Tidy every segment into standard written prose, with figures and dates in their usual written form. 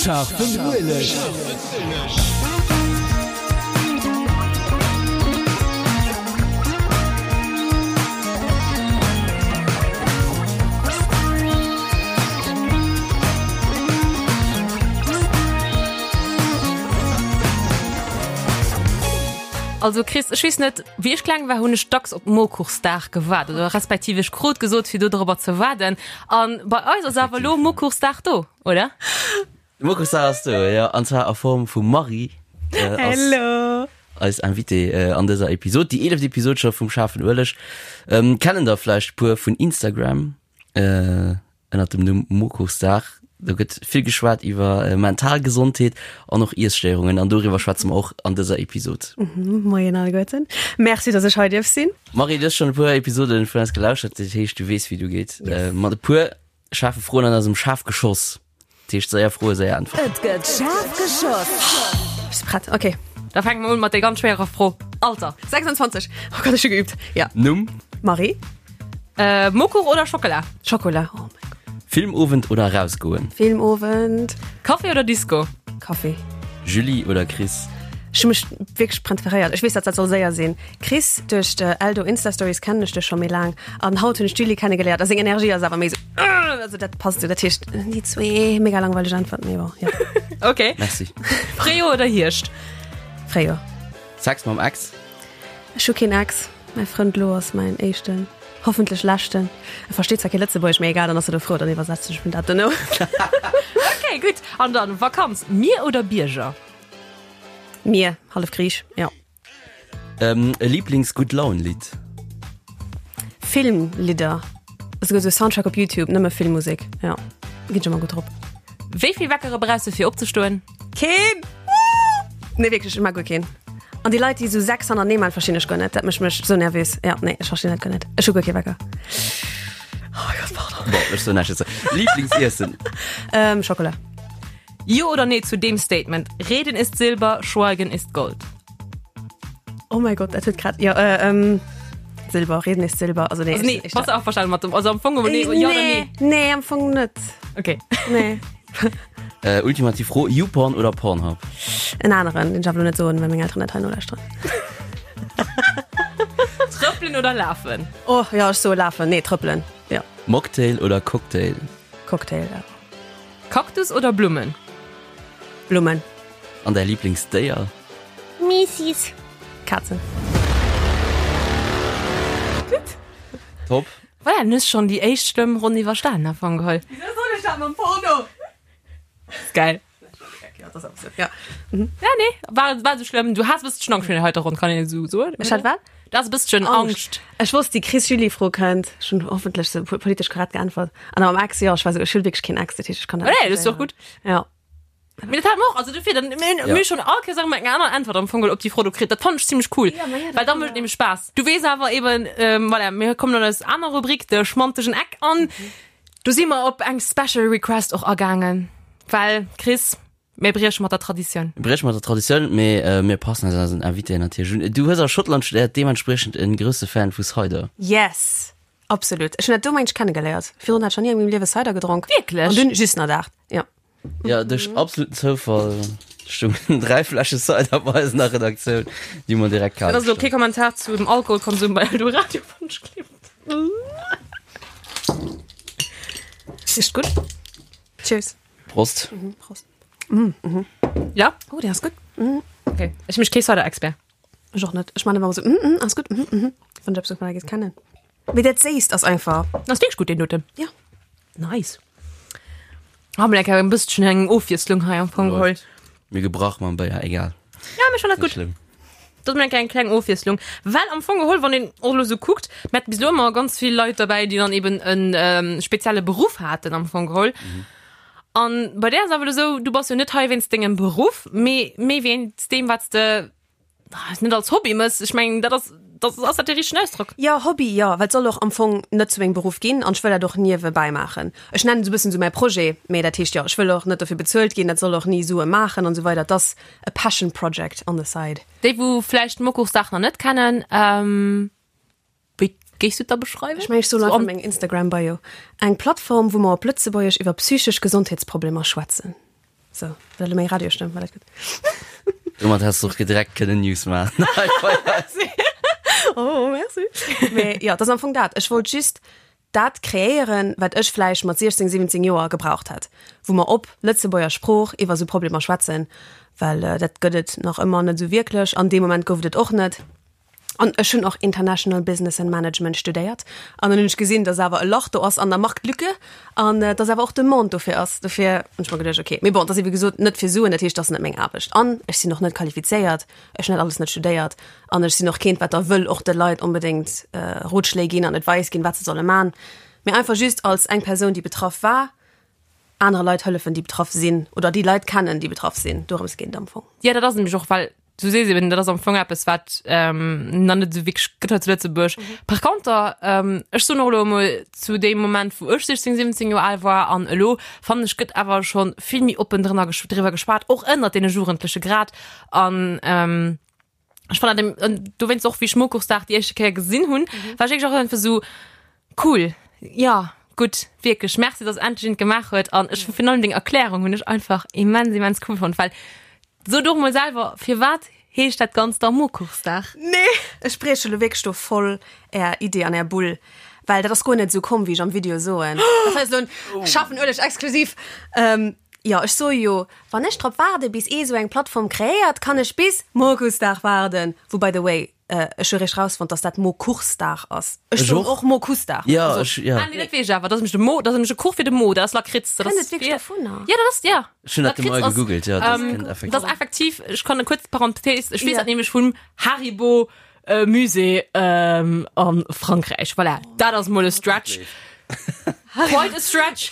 Schaarfen Ueleg! Also Chris, ech weess net, wéi ech kleng war, hunn ech dacks op Mokuchsdag gewaart oder respektiv ech krut gesot, fir do dorobber ze waarden. An bei eis ass awer elo Mokuchsdag do, oder? Mokuchsdag ass do, jo, an zwar a Form vum Marie. Hello! Eis Invitée an dëser Episod, déi eeleft Episod scho vum Schaarfen Ueleg. Kennen der vläicht puer vun Instagram. Ënnert dem Numm Mokuchsdag. Do gëtt vill geschwat iwwer mental Gesondheet an och Iesstéierungen an doriwwer schwätze mer och an dëser Episod. Moien alleguerten. Merci, dass ech hei dierf sinn. Marie, du hues schonn e puer Episode vun eis gelauschtert, dat heescht, du weess, wéi du geet. Mat e puer schaarfe Froen an eisem Schafgeschoss. Dat heescht, séier Froe, séier Äntwerten. Et gëtt schaarf geschoss. Bist du prett? Ok. Da fänke mer un mat der ganz schwéierer Fro. Alter? 26. Oh Gott, ech hu geübt. Ja. Numm? Marie. Äh, Mokuch oder Schockela? Schokola. Oh mein Gott. Filmowend oder rausgoen? Filmowend. Café oder Disco? Café. Julie oder Chris? Ech hu mech wierklech präferéiert. Ech weess, dat dat soll séier sinn. Chris, duerch de Eldo Insta Stories kennen ech dech scho méi laang. An haut hunn ech d'Julie kennegeléiert a seng Energie ass awer méi sou, also dat passt sou. Dat heescht, déi zwee, mega langweileg Äntwert, mee bon, jo. Ok. Merci. Fréijoer oder Hierscht? Fréijoer. Sex mam Ex? Ech hu keen Ex. Mäi Frënd lo ass mäin éischten, hoffentlech leschten. E versteet zwar kee Lëtzebuergesch, mee egal, dann ass e do frou, dann iwwersetzen ech him dat dono. Ok, gutt. An dann Vakanz, Mier oder Bierger? Mier, hallef Griich, jo. E Liiblings-Gutt-Laun-Lidd? Filmlidder, esouguer esou Soundtrack op Youtube, nëmme Filmmusek, jo, ginn ech ëmmer gutt drop. Wéi vill Weckere brauchs de fir opzestoen? Keen! Nee wierklech, ech mag guer keen. An déi Leit déi esou 6 hannertenee man, verstinn ech guer net. Dat mécht mech esou nervös. Ja, nee, ech verstinn dat guer net. Ech hu guer kee Wecker. Oh mein Gott, pardon. Bon, ech soen näischt dozou. Lieblingsiessen? Ähm, Schokola. Jo oder nee zu deem Statement, Reden ist Silber, Schweigen ist Gold? Oh mein Gott, dat huet grad, jo, äh, ähm, Silber, Reden ist Silber, also nee. Also nee, ech, ech, bass du averstanen mat dem, also am Fong, nee, jo oder nee? Nee, am Fong net. Okay. Nee. Äh, ultimativ Fro, YouPorn oder Pornhub? En aneren, den ech awer lo net soen, well meng Elteren dat hei nolauschteren. Trëppelen oder lafen? Oh ja, ech soe lafen. Nee, trëppelen. Ja. Mocktail oder Cocktail? Cocktail, ja. Kaktus oder Blummen? Blummen. An däi Lieblingsdéier? Miisis. Kazen. Gutt. Top. Voilà, dann hues schonn déi éischt schlëmm Ronn iwwerstanen am Fong geholl. Wieso soll ech dat mam Porno? Ist geil. Ja, das ass ja. Ja, nee, war, war sou schlëmm. Du has e bësschen Angscht virun der heiter Ronn, kann een esou soen. Ech hat wat? Du has e bësschen Angscht. Ech wosst, déi Chris-Julie-Fro kënnt. Ech hunn hoffentlech sou politesch korrekt geäntwert. An am Ex, jo, ech war sou, ech hunn wierklech keen Ex, dat heescht, ech kann dat Nee, dat ass jo och gutt. Ja. Mee dat hat mer och, also dofir, dann, mir hunn, mir hu schonn all Kéiers eng aner Äntwert am Fong geholl op déi Fro do kritt. Dat fannen ech zimmlech cool, Ja, ma ja, dat well da mécht et nämlech Spaass. Du weess awer eben, voilà, mir kommen an eis aner Rubrik, de schmantegen Eck, an do si mer op eng Special Request och agaangen, well, Chris, mir brieche mat der Traditioun. Mir brieche mat der Traditioun, mee mir passen eis eisen Invitéen natierlech un. Du hues a Schottland studéiert, deementspriechend e grousse Fan vu Cider. Yes! Absolut. Ech hunn dat do mengt ech kennegeléiert. Virdrun hat ech nach ni a mengem Liewe Cider gedronk. Wierklech? An dunn just nach dat, jo. Ja, duerch absoluten Zoufall stungen 3 Fläsche Cider bei eis an der Redaktioun, déi mer direkt kal Dat ass elo kee Kommentar zu dem Alkoholkonsum bei Eldoradio Wonschklipp. Richt gutt. Cheers. Prost. Mhm, Prost. Ja? Oh, dee ass gutt. Okay. Ech mech kee Cider-Expert. Ech och net. Ech man ëmmer esou, mm, mm, ass gutt, mm, mm, wann ech eppes dovunner géif kennen. Mee dat Séisst ass einfach. Ass wierklech gutt, deen doten. Ja. Nice. Ah, mir eng bësschen eng Ofwiesslung hei am Fong geholl. Mir gebrach mam Béier, egal. Ja, mir schon dat Net gutt. schlëmm. Dat ass eng kleng Ofwiesslung. Well am Fong geholl, wann een och elo sou kuckt, mir haten bis elo ëmmer ganz vill Leit derbäi, déi dann eben en ähm, spezielle Beruff haten am Fong geholl. An bei där ass awer elo sou, du bass jo net hei wéinst dengem Beruff, mee méi wéinst deem, wat s de net als Hobby mëss. Ech mengen, dat ass, dat ass dat de richtegen Ausdrock? Jo, Hobby, jo, well et soll och am Fong net zu mengem Beruff ginn an ech wëll dat och niewebäi maachen. Ech nennen et esou e bëssen esou mäi Projet, mee dat heescht jo, ech wëll och net dofir bezuelt ginn, dat soll och ni Sue maachen an esou weider. Et ass e Passion Project on the side. Déi wou vläicht d'Mokuchsdag nach net kennen, Wéi géifs du et da beschreiwen? Ech mengen, ech soen einfach meng Instagram Bio, eng Plattform, wou mer op Lëtzebuergesch iwwer psychesch Gesondheetsproblemer schwätzen. Sou, dat elo meng Radiostëmm, war dat gutt? Domat häss de och direkt kënnen News maachen. Oh, merci. Mee jo, dat ass am Fong dat. Ech wollt just dat kreéieren, wat ech vläicht mat 16, 17 Joer gebraucht hätt, wou mer op Lëtzebuerger Sprooch iwwer esou Problemer schwätzen, well dat gëtt et nach ëmmer net esou wierklech. An deem Moment gouf et et och net. An ech hunn och International Business and Management studéiert. An dann hunn ech gesinn, dass awer e Lach do ass an der Marktlücke an dass awer och Demande dofir ass. Dofir hunn ech mer geduecht, okay, mee bon, dat ass wéi gesot net fir Suen, dat heescht, dat ass net meng Aarbecht. An ech sinn och net qualifizéiert, ech hunn dat alles net studéiert an ech sinn och keent, wat da wëll och de Leit onbedéngt Rotschléi ginn an Advice ginn, wat se solle man. Mee einfach just als eng Persoun, déi betraff war, anere Leit hëllefen, déi betraff sinn oder déi Leit kennen, déi betraff sinn. Dorëms geet et am Fong. Jo, dat ass nämlech och, well du sees eben, dat ass am Fong eppes, wat ähm, nach net esou wierklech gëtt hei zu Lëtzebuerg. Mhm. Par conter, ähm, ech soen och elo emol, zu deem Moment, wou ech 16, 17 Joer al war an elo, fannen ech, gëtt awer schonn vill méi oppen drënner gesch driwwer geschwat, och ënnert deene Jugendleche grad. An ähm, ech fannen dat eben, dowéinst och, wéi ech Mokuchsdag déi éischte Kéier gesinn hunn, mhm. war ech wierklech och einfach esou, cool, ja, gutt, wierklech, merci, dass endlech een et gemaach huet. An ech virun allem deng Erklärung hunn ech einfach immens, immens cool fonnt, well Sot och mol selwer, firwat heescht dat Ganzt da Mokuchsdag? Nee, ech brieche lo wierklech do voll är Idee an är Bull, well dat ass guer net esou komm, wéi ech am Video soen. Dat hei ass lo en scharfen Ueleg exklusiv. Jo, ech soe jo, wann ech drop waarde bis ee sou eng Plattform kreéiert, kann ech bis Mokuchsdag waarden, wou by the way, Ech hu réischt rausfonnt, dass dat Mokuchsdag ass. Ech soen och Mokussdag. Ja, also, ech, ja. Ah, nee, dat weess ech awer. Dat ass nämlech de Mo, dat ass nämlech e Kuch fir de Mo, dat ass Lakritz. Dat Kënnt et wierklech dovunner? Ja, dat ass, ja. Ech hunn dat emol gegoogelt, ja, dat kënnt effektiv. Dat ass effektiv, ech kann e kuerz Parenthèse, ech weess dat nämlech vum Haribo Musée a Frankräich. Voilà, dat ass mol e Stretch. Quite a stretch.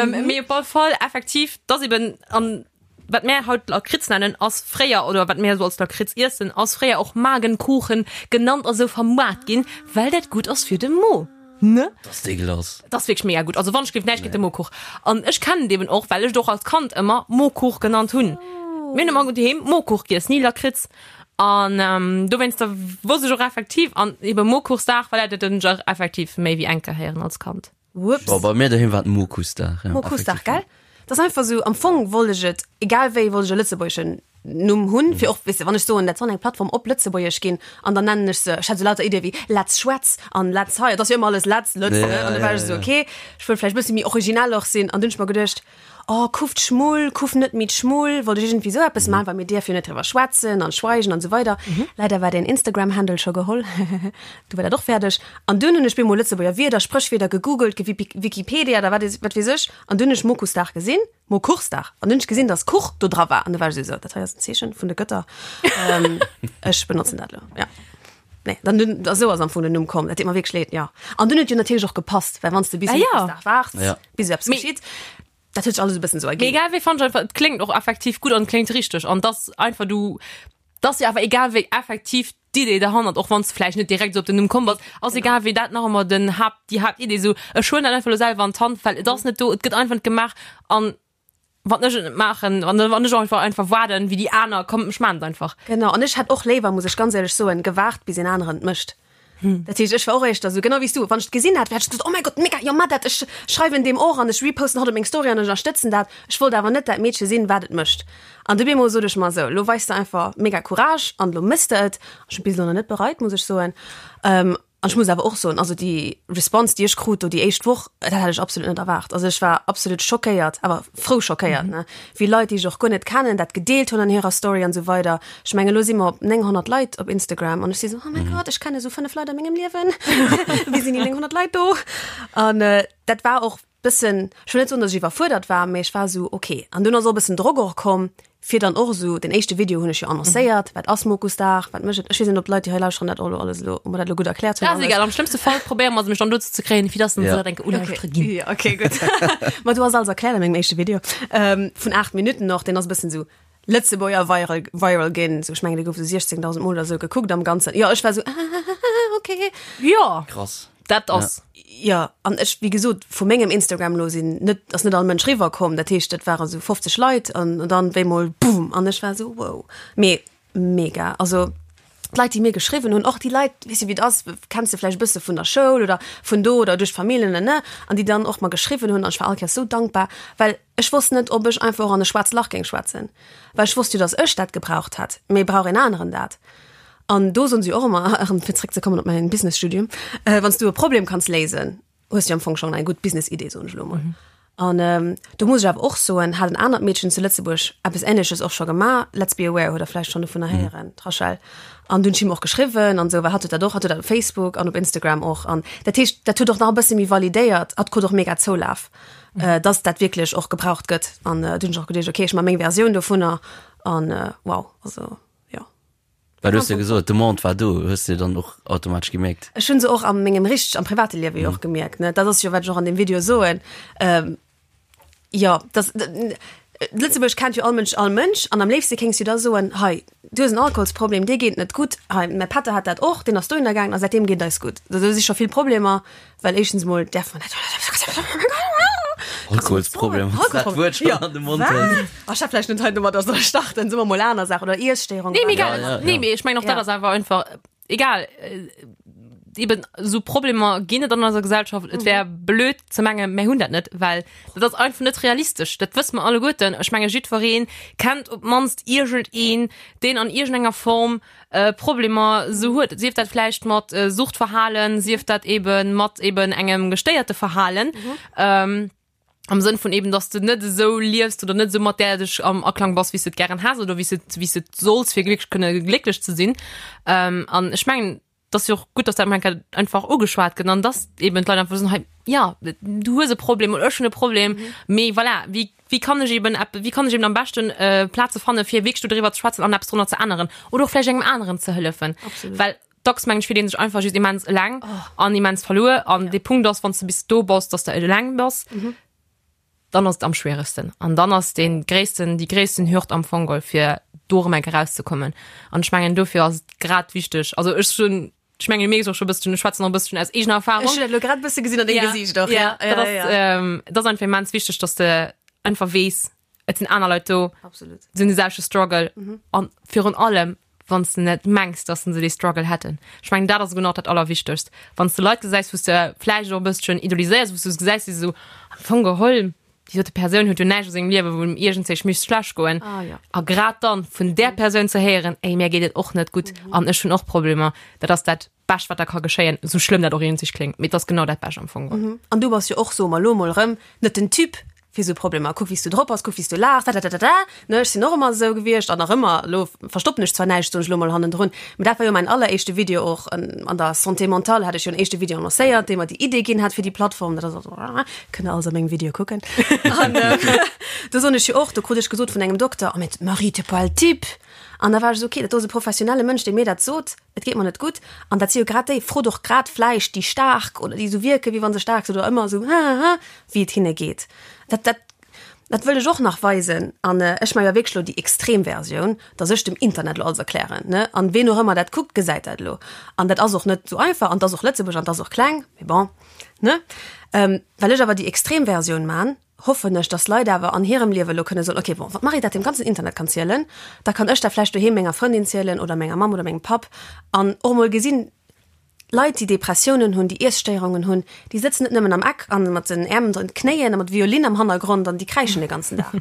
Mee op alle Fall, effektiv, dat ass eben an. Wat mär haut Lakritz nennen, ass fréier, oder wat mär esou als Lakritz iessen, ass fréier och Magenkuchen genannt a sou vermaart ginn, well dat gutt ass fir de Mo, ne? Dat ass dégueulasse. Dat ass wierklech mega gutt. Also wann ech géif näischt géint de Mokuch. An ech kennen et eben och, well ech et och als Kand ëmmer Mokuch genannt hunn. Mir hunn ëmmer doheem Mokuch giess, ni Lakritz. An dowéinster wosst ech och effektiv, an ebe Mokuchsdag, well dat hunn ech och effektiv méi wéi eng Kéier héieren als Kand. Whoops. Bon, bei mir doheem war et Mokussdag. Ja, Mokussdag, gell? Dat ass einfach sou, am Fong wollt ech et, egal wéi, wollt ech e lëtzebuergeschen Numm hunn, fir och, weess de, wann ech soen, dat soll eng Plattform op Lëtzebuergesch ginn, an dann nennen ech se, ech hat sou lauter Iddie wéi Letz Schwätz an Letz hei, et ass jo ëmmer alles Letz, Lëtz, ne? An da war ech esou, okay, ech wëll vläicht e bësse méi originell och sinn, an dunn hunn ech mer geduecht, Oh, kuff d'Schmull, kuff net méi d'Schmull, wollt ech iergendwéi sou eppes maachen, well mir dierf jo net driwwer schwätzen an schweigen an esou weider. Leider war deen Instagram-Handle scho geholl, du war dat och fäerdeg. An dunn hunn ech bemol Lëtzebuerger Wierder, Spréchwierder gegoogelt, gewikipedia oder wat wat weess ech, an dunn hunn ech Mokussdag gesinn, Mokuchsdag, an dunn hunn ech gesinn, dass Kuch do dra war, an du war ech esou, dat hei ass en Zeechen vun de Gëtter, ech benotzen dat elo, ja. Nee, dann dunn, esou ass am Fong den Numm komm, dat deet mer wierklech leed, jo. An dunn huet jo natierlech och gepasst, well wann s de bis Ah, ja. Mokussdag waarts, Ja. bis eppes Mee- geschitt, dat huet sech alles e bëssen esou Mee erginn. egal wéi fand ech einfach, et kléngt och effektiv gutt an et kléngt richteg an dass einfach du, dass jo awer egal wéi effektiv d'Idee derhannert, och wann s de vläicht net direkt esou op den Numm komm bass, ass egal wéi dat nach ëmmer den Haapt, déi Haaptidee esou, ech huelen dat einfach elo selwer an d'Hand, well et ass net do, et gëtt einfach net gemaach an Wann ech et net maachen, wann wann ech einfach einfach waarden, wéi déi aner, komm ech maan et einfach. Genau, an ech hätt och léiwer, muss ech ganz éierlech soen, gewaart bis een aneren et mécht. Dat heescht, ech war och éischter esou, genau wéi s du, wann ech et gesinn hätt, hätt ech gesot, oh mäi Gott, mega, jo mat dat, ech schreiwen deem och an ech reposten hatt op meng Story an ech ënnerstëtzen dat. Ech wollt awer net dat Meedche sinn, wat et mécht. An du bemol sot ech mer esou, elo weis de einfach mega Courage an elo méchs de et. Ech hunn bis elo nach net bereit, muss ech soen. An ech muss awer och soen, also déi Response, déi ech krut do déi éischt Woch, dat hat ech absolut net erwaart. Also ech war absolut schockéiert, awer frou schockéiert, ne, wéi Leit, déi ech och guer net kennen, dat gedeelt hunn an hirer Story an esou weider. Ech mengen, elo si mer op 900 Leit op Instagram an ech si sou, oh mäi Gott, ech kenne sou 5 Leit a mengem Liewen, wéi sinn déi 900 Leit do? An dat war och bëssen, ech wëll net soen, datt ech iwwerfuerdert war, mee ech war esou, ok. An dunn ass och e bëssen Drock och komm, fir dann och esou, den éischte Video hunn ech jo annoncéiert, wat ass Mokusdag, wat mécht et? Ech weess net, ob d'Leit, déi hei lauschteren, dat och elo alles elo, ob mer dat elo gutt erkläert hunn Dat ass alles. egal, am schlëmmste Fall probéiere mer se mech dann dozou ze kréien, fir dass se Ja. dat enke ulauschtere ginn. Ja, okay, gutt. Ma du ass alles erkläert a mengem éischte Video, vun 8 Minutten och, deen ass e bëssen esou Lëtzebuerger viral, viral ginn, esou, ech mengen, dee gouf esou 16.000 Mol oder esou gekuckt am Ganzen. Jo, ech war esou, okay. Jo, Krass. dat ass. Jo, an ech, wéi gesot, vu mengem Instagram elo sinn net, ass net all Mënsch riwwer komm. Dat heescht, dat ware sou 50 Leit an dann wéi mol boom an ech war sou wow. Mee mega, also. D'Leit, déi mir geschriwwen hunn, och déi Leit, weess de wéi et ass, kenns de vläicht e bësse vun der Schoul oder vun do oder duerch d'Familljen, ne ne, an déi dann och mer geschriwwen hunn an ech war all Kéiers esou dankbar, well ech wosst net, ob ech einfach och an e schwaarzt Lach géing schwätzen, well ech wosst jo, datt ech dat gebraucht hätt, mee brauch een aneren dat? An do soen se jo och ëmmer, erëm fir zréckzekommen op mäin Business-Studium, wann s du e Problem kanns léisen, hues du am Fong schon eng gutt Business-Idee, soen ech elo mol. An ähm, do muss ech awer och soen, hat en anert Meedchen zu Lëtzebuerg eppes Ähnleches och scho gemaach, Let's Be Aware, huet der vläicht schonn dovunner héieren, d'Rachel. An du hunn ech him och geschriwwen an esou, well hatt huet dat och, hatt huet dat op Facebook an op Instagram och. An dat heescht, dat huet och nach e bësse méi validéiert, hatt krut och mega Zoulaf, äh, dass dat wierklech och gebraucht gëtt. An äh, du hunn ech och geduecht, okay, ech maache meng Versioun dovunner an äh, wow, also jo. Well du hues jo gesot, d'Demande war do, hues de dann och automatesch gemierkt? Ech hunn se och a mengem richteg, am private Liewe jo och gemierkt, ne. Dat ass jo, wat ech och an deem Video soen. Jo, dass, Lëtzebuerg kennt jo all Mënsch all Mënsch an am léifste kéings du da soen, hei, du hues en Alkoholsproblem, dir geet net gutt, hei, mäi Pätter hat dat och, deen ass dohinner gaangen a säitdeem geet et eis gutt. Do si scho vill Problemer, well éischtens emol däerf mer net. Alkoholsproblem, wann s de dat Wuert schonn an de Mond hëls. Ech hat vläicht net hei domadder solle starten, soe mer mol aner Saachen oder Iesstéierung. Nee, mee egal. Ja, ja, Nee, ja. mee ech mengen och dat Ja. ass awer einfach egal. Äh, Eben esou Problemer ginn et an eiser Gesellschaft. Et wär blöd ze mengen, mir hunn dat net, well dat ass einfach net realistesch. Dat wësse mer alleguerten. Ech menge jiddweree kennt op d'mannst iergendeen, deen an iergendenger Form äh, Problemer esou huet. Sief dat vläicht mat äh, Suchtverhalen, sief dat eben mat eben engem gestéierte Verhalen. Ähm, am Sënn vun eben, dass du net esou liefst oder net esou mat där dech am Aklang bass, wéi s du et gären häss oder wéi s du et, wéi s du et solls, fir glécklech kënne glécklech ze sinn. Ähm, an ech mengen, et ass jo och gutt, dass dat emol eng Kéier einfach ugeschwat gëtt an dass eben d'Leit einfach soen, hei, ja, du hues e Problem oder ech hunn e Problem, mee voilà, wéi, wéi kann ech eben epp, wéi kann ech eben am beschten Plaze fanne fir wierklech do driwwer ze schwätzen an eppes drunner ze änneren oder och vläicht engem aneren ze hëllefen. Absolut. Well dacks mengen ech fillt een sech einfach just immens eleng an immens verluer an de Punkt ass, wann s de bis do bass, dass de eleng bass, dann ass et am schwieregsten an dann ass dee gréissten, déi gréissten Hürd am Fong geholl fir do erëm eng Kéier rauszekommen an ech mengen dofir ass et grad wichteg, also ech hunn, ech mengen du mierks och scho e bësschen, ech schwätzen och e bësschen aus eegener Erfahrung. Ech hunn dat elo grad e bësse gesinn an dengem Gesiicht och, ja, dat ass, dat ass einfach immens wichteg, dass de einfach weess, et sinn aner Leit do, Absolut. se hunn de selwechte Struggle mhm. an virun allem wann du net mengs, dass se dee Struggle hätten. Ech mengen dat ass genau dat allerwichtegst. Wann du Leit gesäis, wou du vläicht och e bësschen idoliséiers, wou du gesäis, déi sou am Fong geholl, déi dote Persoun huet jo näischt a sengem Liewe wou em iergendzéich misst schlecht goen. Ah, ja. A grad dann vun där Persoun ze héieren, ey mir geet et och net gutt mhm. an ech hunn och Problemer, dat ass dat Bescht wat da ka geschéien, sou schlëmm dat och iergendzéich kléngt, mee et ass genau dat Bescht am Fong geholl. An du bass jo och, soe mer elo mol erëm, net den Typ fir sou Problemer. Kuck wéi s du drop bass, kuck wéi s du laachs, dadadadada, ne? Ech sinn och ëmmer esou gewiescht an nach ëmmer. Elo verstoppen ech zwar näischt, soen ech elo mol hannendrun, mee dat war jo mäin alleréischte Video och an der Santé mentale hat ech jo en éischte Video annoncéiert, dee mer déi Idee ginn hat fir déi Plattform. Dat ass also, kënnt der alles a mengem Video kucken. An do soen ech jo och, do krut ech gesot vun engem Dokter, Oh mais Marie, t'es pas le type! An da war ech esou, okay, dat do ass e professionelle Mënsch, dee mir dat sot. Et geet mer net gutt. An dat si jo grad déi, frot och grad vläicht déi Staark oder déi esou wierken, wéi wa se staark sinn oder ëmmer esou hahaha, wéi et hinne geet. Dat, dat, dat wëll ech och nach weisen. An ech maache jo wierklech elo déi extrem Versioun, dass ech dem Internet elo alles erklären, ne? An ween och ëmmer dat kuckt, gesäit dat elo. An dat ass och net esou einfach an 't ass och Lëtzebuerg an 't ass och kleng, mee bon, ne? Well ech awer déi extrem Versioun man, hoffen ech, dass Leit awer an hirem Liewe elo kënne soen, okay, bon, wann d'Marie dat dem ganzen Internet kann zielen, da kann ech dat vläicht doheem menger Frëndin zielen oder menger Mamm oder mengem Papp an och emol gesinn, Leit, déi Depressiounen hunn, déi Iesstéierungen hunn, déi sëtzen net nëmmen am Eck an mat den Äerm ënner den Knéien a mat Violinn am Hannergrond an déi kräischen de ganzen Dag.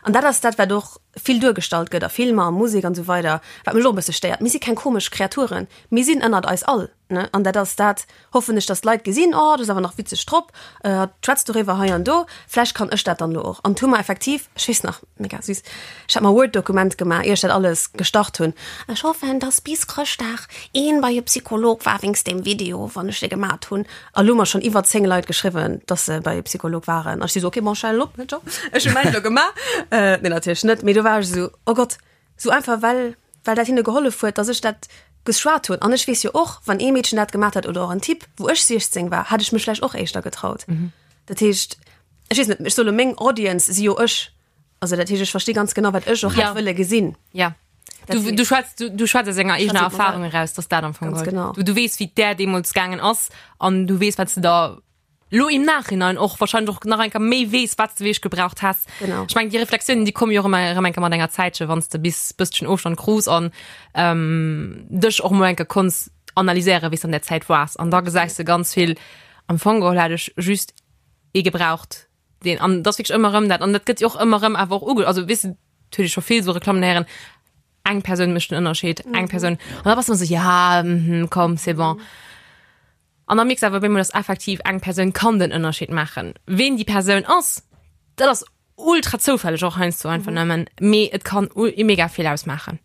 An dat ass dat, wat och vill duergestallt gëtt a Filmer a Musek an esou weider, wat mech och e bësse stéiert. Mir si keng komesch Kreaturen, mir sinn ënnert eis all. Ne? An dat ass dat, hoffen ech, dass d'Leit gesinn, oh, dat ass awer nach witzeg drop, äh, hatt schwätzt doriwwer hei an do, vläicht kann ech dat dann elo och. An hu mer effektiv, ech weess nach, mega süß, ech hat mer e Word-Dokument gemaach, ier ech dat alles gestart hunn, Ech hoffen, dass bis Chrëschtdag een bei e Psycholog war wéinst deem Video, wann ech dee gemat hunn. A lo hu mer schonn iwwer 10 Leit geschriwwen, dass se bei e Psycholog waren. An ech si sou, okay, bon, ech halen op, ciao, ech hu mäin elo gemaach. Äh, nee, natierlech net, mee do war ech esou, oh Gott, Sou einfach well well dat hinne gehollef huet, dass ech dat geschwat hunn. An ech weess jo och, wann ee Meedchen dat gemaat hätt oder och en Typ, wou ech 16 war, hätt ech mech vläicht och éischter getraut. Dat heescht, ech weess net, ech soe lo meng Audience si jo ech. Also dat heescht, ech versti ganz genau, wat ech och hätt wëlle gesinn. Ja. Du, du schwätz, du, du schwätz aus enger eegener Erfahrung eraus, dass dat am Fong Ganz geholl. genau. Du, du weess, wéi et där deemools gaangen ass an du weess, wat s de da. Lo im Nachhinein och wahrscheinlech och nach eng Kéier méi weess, wat s de wierklech gebraucht häss. Genau. Ech mengen, déi Reflexiounen, déi komme jo och ëmmer erëm eng Kéier mat enger Zäitche, wann s de bis bësschen Ofstand krus an ähm, dech och mol eng Kéier konns analyséieren, wéi s de an där Zäit waars. An da gesäis de ganz vill, am Fong geholl hätt ech just ee gebraucht, deen, an dat ass wierklech ëmmer erëm dat, an dat gëtt jo och ëmmer erëm awer och uge, also weess de, dat huet ee scho vill esou Reklammen héieren, eng Persoun mécht den Ënnerscheed, eng Persoun. An da bass de ëmmer esou, ja, mhm, komm, c'est bon. An da mierks de awer op eemol, dass effektiv eng Persoun kann den Ënnerscheed maachen. Ween déi Persoun ass, dat ass ultra zoufälleg och heiansdo einfach nëmmen, mee et kann mega vill ausmaachen.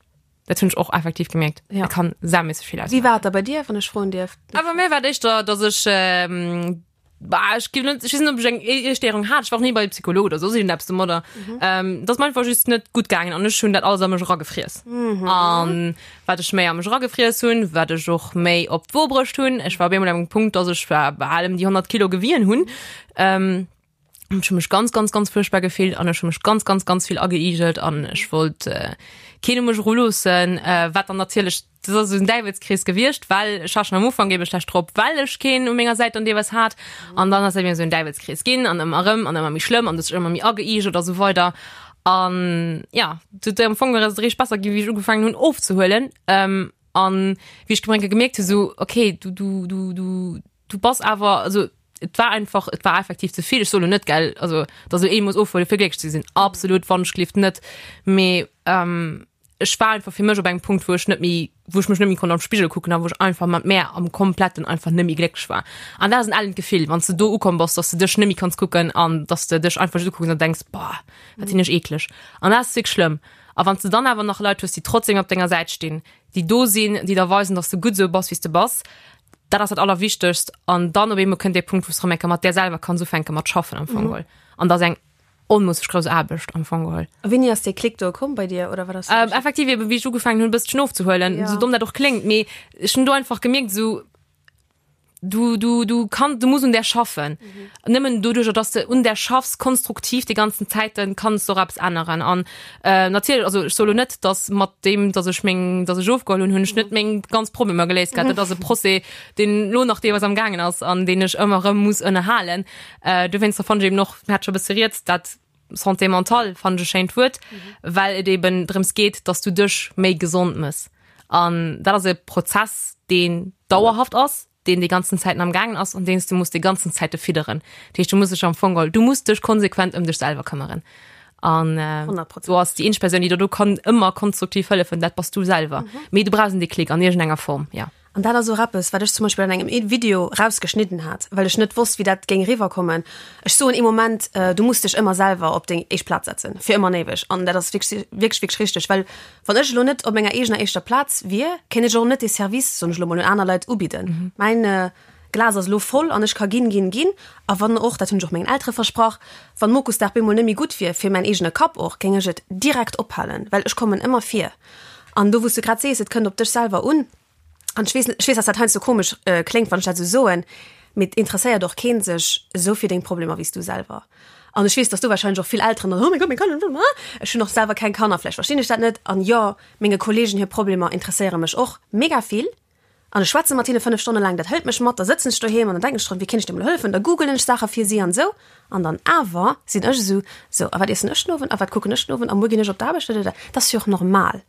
Dat hunn ech och effektiv gemierkt. Ja. Et kann saumässeg vill Wéi ausmaachen. war et da bei dir, wann ech froen dierf? Awer mir war et éischter, dass ech, Bah, ech ginn net, ech weess net, ob ech eng Iesstéierung hat. Ech war och ni bei Psycholog oder soss iergendeppes domadder. Ähm, dat ass mir einfach just net gutt gaangen an ech hunn dat alles a mech eragefriess. An wat ech méi a mech eragefriess hunn, wat ech och méi op d'Wo bruecht hunn. Ech war op eemol an engem Punkt, dass ech war bal ëm déi 100 Kilo gewien hunn. Ähm, ech hu mech ganz, ganz, ganz fuerchtbar gefillt an ech hu mech ganz, ganz, ganz vill ageigelt an ech wollt äh, keen u mech eruloossen, äh, wat dann natierlech Dat ass esou en Däiwelskrees gewiescht, well ech war schon am Ufank ebe schlecht drop, well ech keen u menger Säit dann deelweis hat. An dann ass dat eben esou en Däiwelskrees ginn an ëmmer erëm an ëmmer méi schlëmm an du hues dech ëmmer méi ageigelt a sou weider. An ja, du am Fong ass et eréischt besser ginn, wéi ech ugefaangen hunn ofzehuelen. Ähm, an wéi ech gemeng gemierkt hu sou, okay, du du du du du bass awer, also et war einfach, et war effektiv ze vill. Ech soe lo net, gell, also dass elo ee muss ofhuele fir glécklech ze sinn, absolut, wannechgelift net. Mee ähm, ech war einfach fir mech op engem Punkt, wou ech net méi, wou ech mech net méi konnt am Spigel kucken a wou ech einfach mat mär am kompletten einfach net méi glécklech war. An dat ass en ellent Gefill, wann s de do ukomm bass, dass de dech net méi kanns kucken an dass de dech einfach just ukucks an denks, boah, wat sinn ech eekleg. An dat ass wierklech schlëmm. A wann s de dann awer nach Leit hues, déi trotzdem op denger Säit stinn, déi do sinn, déi der weisen, dass de gutt esou bass, wéi s de bass, dat ass dat Allerwichtegst. An dann op eemol kënnt dee Punkt, wou s de erëm eng Kéier mat där selwer kanns ufänke mat schaffen am Fong geholl. An dat ass eng onmoosseg grouss Aarbecht am Fong geholl. A wéini ass dee Klick do komm bei dir oder wat ass? Ähm, effektiv eben, wéi ech ugefaangen hunn, e bësschen ofzehuelen, Ja. sou domm dat och kléngt, mee ech hunn do einfach gemierkt, sou du, du, du kann, du muss un där schaffen. Mhm. Nëmmen doduercher, dass de un där schaffs, konstruktiv déi ganzen Zäiten, kanns de och eppes änneren. An äh, natierlech, also ech soe lo net, dass mat deem, dass ech meng, dass ech ofgeholl hunn, hunn ech net meng ganz Problemer geléist gehat. Dat ass e Procès, deen lo nach deelweis am gaangen ass an deen ech ëmmer erëm muss ënnerhalen. Äh, dowéinster fannen ech eben och, mir hat scho e bësse rieds, dat Santé mentale fannen ech e schéint Wuert, well et eben drëms geet, dass du dech méi gesond mëss. An dat ass e Prozess, deen dauerhaft ass, deen déi ganzen Zäiten am gaangen ass an deen s du muss déi ganzen Zäite fidderen. Dat heescht, du muss dech am Fong geholl, du muss dech konsequent ëm dech selwer këmmeren. An äh, 100%. do ass déi eenzeg Persoun, déi der do kann ëmmer konstruktiv hëllefen, dat bass du selwer. Mee du brauchs en Déclic an iergendenger Form, ja. An dat ass och eppes, wat ech zum Beispill an engem Video rausgeschnidden hat, well ech net wosst, wéi dat géing eriwwerkommen. Ech soen ee Moment, du muss dech ëmmer selwer op deng éischt Plaz setzen, fir ëmmer an éiweg. An dat ass wierklech, wierklech, wierklech richteg, well wann ech elo net op menger eegener éischter Plaz wier, kéint ech och net dee Service, soen ech elo mol, un aner Leit ubidden. Mäin Glas ass elo voll an ech ka ginn, ginn, ginn. A wann och, dat hunn ech och mengen Eltere versprach, wann Mokusdag bemol net méi gutt wier, fir mäin eegene Kapp och, géing ech et direkt ophalen, well ech kommen ëmmer vir. An do, wou s du grad sees, et kënnt op dech selwer un, an ech weess, ech weess, dass dat heiansdo komesch kléngt, wann ech dat esou soen, mee et interesséiert och kee sech esou fir deng Problemer wéi s du selwer. An ech weess, dass do wahrscheinlech och vill Elteren dann, oh mäi Gott, meng Kanner, ech hunn och selwer keng Kanner, vläicht verstinn ech dat net. An jo, menge Kollegen hir Problemer interesséiere mech och mega vill. An ech schwätze mat hinne 5 Stonne laang, dat hëlt mech mat, da sëtzen ech doheem an dann denken ech drun, wéi kéint ech deem elo hëllefen, da googelen ech Saache fir si an esou. An dann awer sinn ech esou, sou, a wat iessen ech den Owend a wat kucken ech den Owend a muer ginn ech op d'Aarbecht, dadada. Dat ass jo och normal.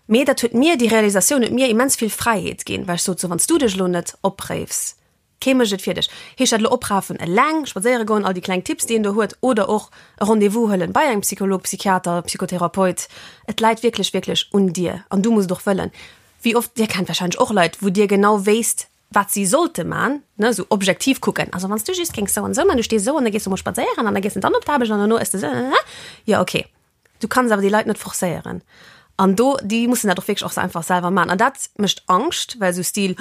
Mee dat huet mir, déi Realisatioun huet mir immens vill Fräiheet ginn, well ech sot, sou, wann s du dech elo net opréifs, Kee mécht et fir dech. Heescht dat elo oprafen, eleng spadséiere goen, all déi kleng Tipps, déi een do huet, oder och e Rendez-vous huelen bei engem Psycholog, Psychiater, Psychotherapeut. Et läit wierklech, wierklech un dir an du muss et och wëllen. Wéi oft, dir kennt warscheinlech och Leit, wou dir genau wéisst, wat si sollte man, ne, esou objektiv kucken, also wann s du just géings esou an esou man, du stees esou an da gees du mol spadséieren an da gees de dann op d'Aarbecht an dono ëss de esou, jo okay. Du kanns awer déi Leit net forcéieren. An do, déi mussen dat och wierklech och se einfach selwer maachen. An dat mécht Angscht, well esou Stil,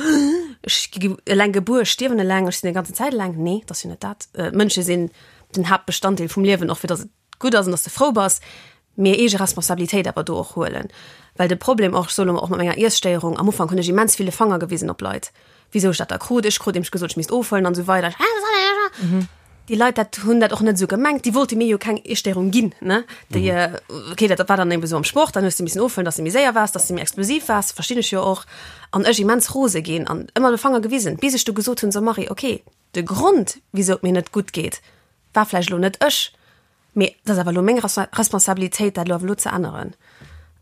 ech gi eleng gebuer, ech stierwen eleng, ech sinn déi ganzen Zäit eleng. Nee, et ass jo net dat. D'Mënsche sinn den Haaptbestanddeel vum Liewen, och fir datt et gutt ass an datt s de frou bass. Mee eege Responsabilitéit awer do och huelen. Well de Problem och, ech soe lo mol, och mat menger Iesstéierung, am Ufank hunn ech immens vill de Fanger gewisen op Leit. Wisou ech dat da krut, ech krut nämlech gesot, ech misst ofhuelen an esou weider. Déi Leit dat hunn dat och net esou gemengt, déi wollte mir jo keng Iesstéierung ginn, ne? Déi, okay, dat war dann eben esou am Sport, dann hues de missen ofhuelen, dass de méi séier waars, dass de méi explosiv waars, verstinn ech jo och. An ech immens rose ginn an ëmmer de Fanger gewisen, bis ech du gesot hunn, so Marie, okay. De Grond, wisou et mir net gutt geet, war vläicht elo net ech, mee et ass awer elo meng Responsabilitéit, dat elo awer elo ze änneren.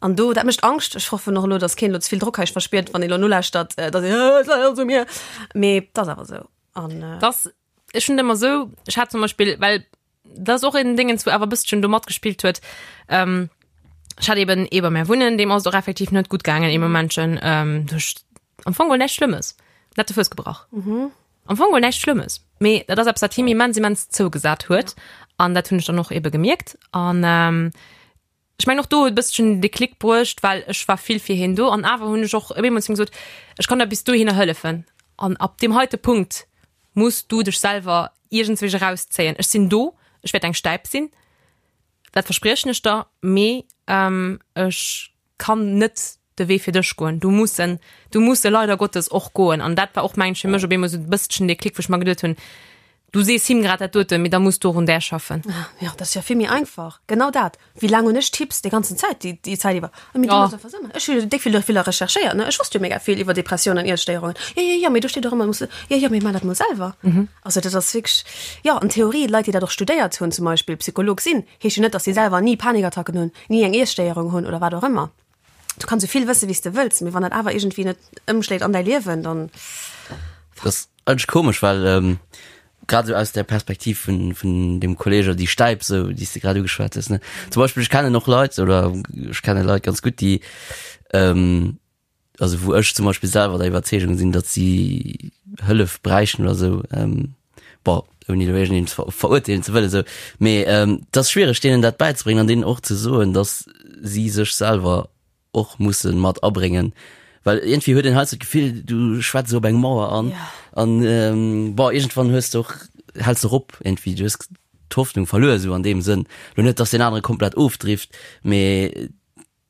An do, dat mécht Angscht. Ech hoffen och elo, datt keen elo ze vill Drock hei verspiert, wann ee elo nolauschtert, datt een, et läit alles u mir. Mee et ass awer esou. An. Dass, ech hunn et ëmmer esou, ech hat zum Beispill, well dat ass och en Déngens, wou awer e bësschen do matgespillt huet, ech hat eben ee bei mär wunnen, deem ass et och effektiv net gutt gaangen ee Momentchen, duerch am Fong geholl näischt Schlëmmes, en hat de Fouss gebrach. Am Fong geholl näischt Schlëmmes, mee dat ass eppes, wat him immens, immens zougesat huet an dat hunn ech dann och ebe gemierkt an ech mengen och do huet e bësschen den Déclic bruecht, well ech war vill fir hien do an awer hunn ech och op eemol zu him gesot, ech kann der bis dohinner hëllefen an ab deem heite Punkt muss du dech selwer iergendswéi erauszéien. Ech sinn do, ech wäert eng Stäip sinn, dat verspriechen ech der, mee ech kann net de Wee fir dech goen, du muss en, du muss e leider Gottes och goen. An dat war och, mengen ech, fir mech op eemol esou e bësschen dee Klick, wou ech mer geduet hunn, du sees him grad dat doten, mee da muss du och un där schaffen. Jo, dat ass jo vill méi einfach. Genau dat. Wéi laang hunn ech Tipps déi ganzen Zäit, déi, déi Zäit iwwer? A mee du muss einfach esou maachen. Ech hu jo déck vill doviller recherchéiert, ne? Ech wosst jo mega vill iwwer Depressiounen an Iesstéierungen. Jo, jo, jo, mee do steet och ëmmer, du muss, jo, jo, mee maach dat mol selwer. Also dat ass wierklech, jo, an Theorie, Leit, déi dat och studéiert hunn, zum Beispill Psycholog sinn, heescht jo net, dass si selwer ni Panikattacken hunn, ni eng Iesstéierung hunn oder wat och ëmmer. Du kanns esou vill wësse wéi s de wëlls, mee wann dat awer iergendwéi net ëmschléit an däi Liewen, dann. Dat ass eigentlech komesch, well grad esou aus der Perspektiv vun, vun dem Kolleg oder déi Stäip esou, déi s de grad ugeschwat hues, ne. Zum Beispill ech kennen och Leit oder ech kenne Leit ganz gutt, déi also wou ech zum Beispill selwer der Iwwerzeegung sinn, datt si Hëllef bräichten oder esou, bon, ouni elo iergendeen ze verurteelen ze wëllen esou, mee et ass schwiereg deenen dat bäizebréngen an deenen och ze soen, datt si sech selwer och musse mat abréngen, well iergendwéi huet een heiansdo d'Gefill, du schwätz esou op eng Mauer an an bon, iergendwann hues de och, häls de och op iergendwéi, du hues d'Hoffnung verluer esou an deem Sënn. Elo net, datt deen anere komplett ofdrift, mee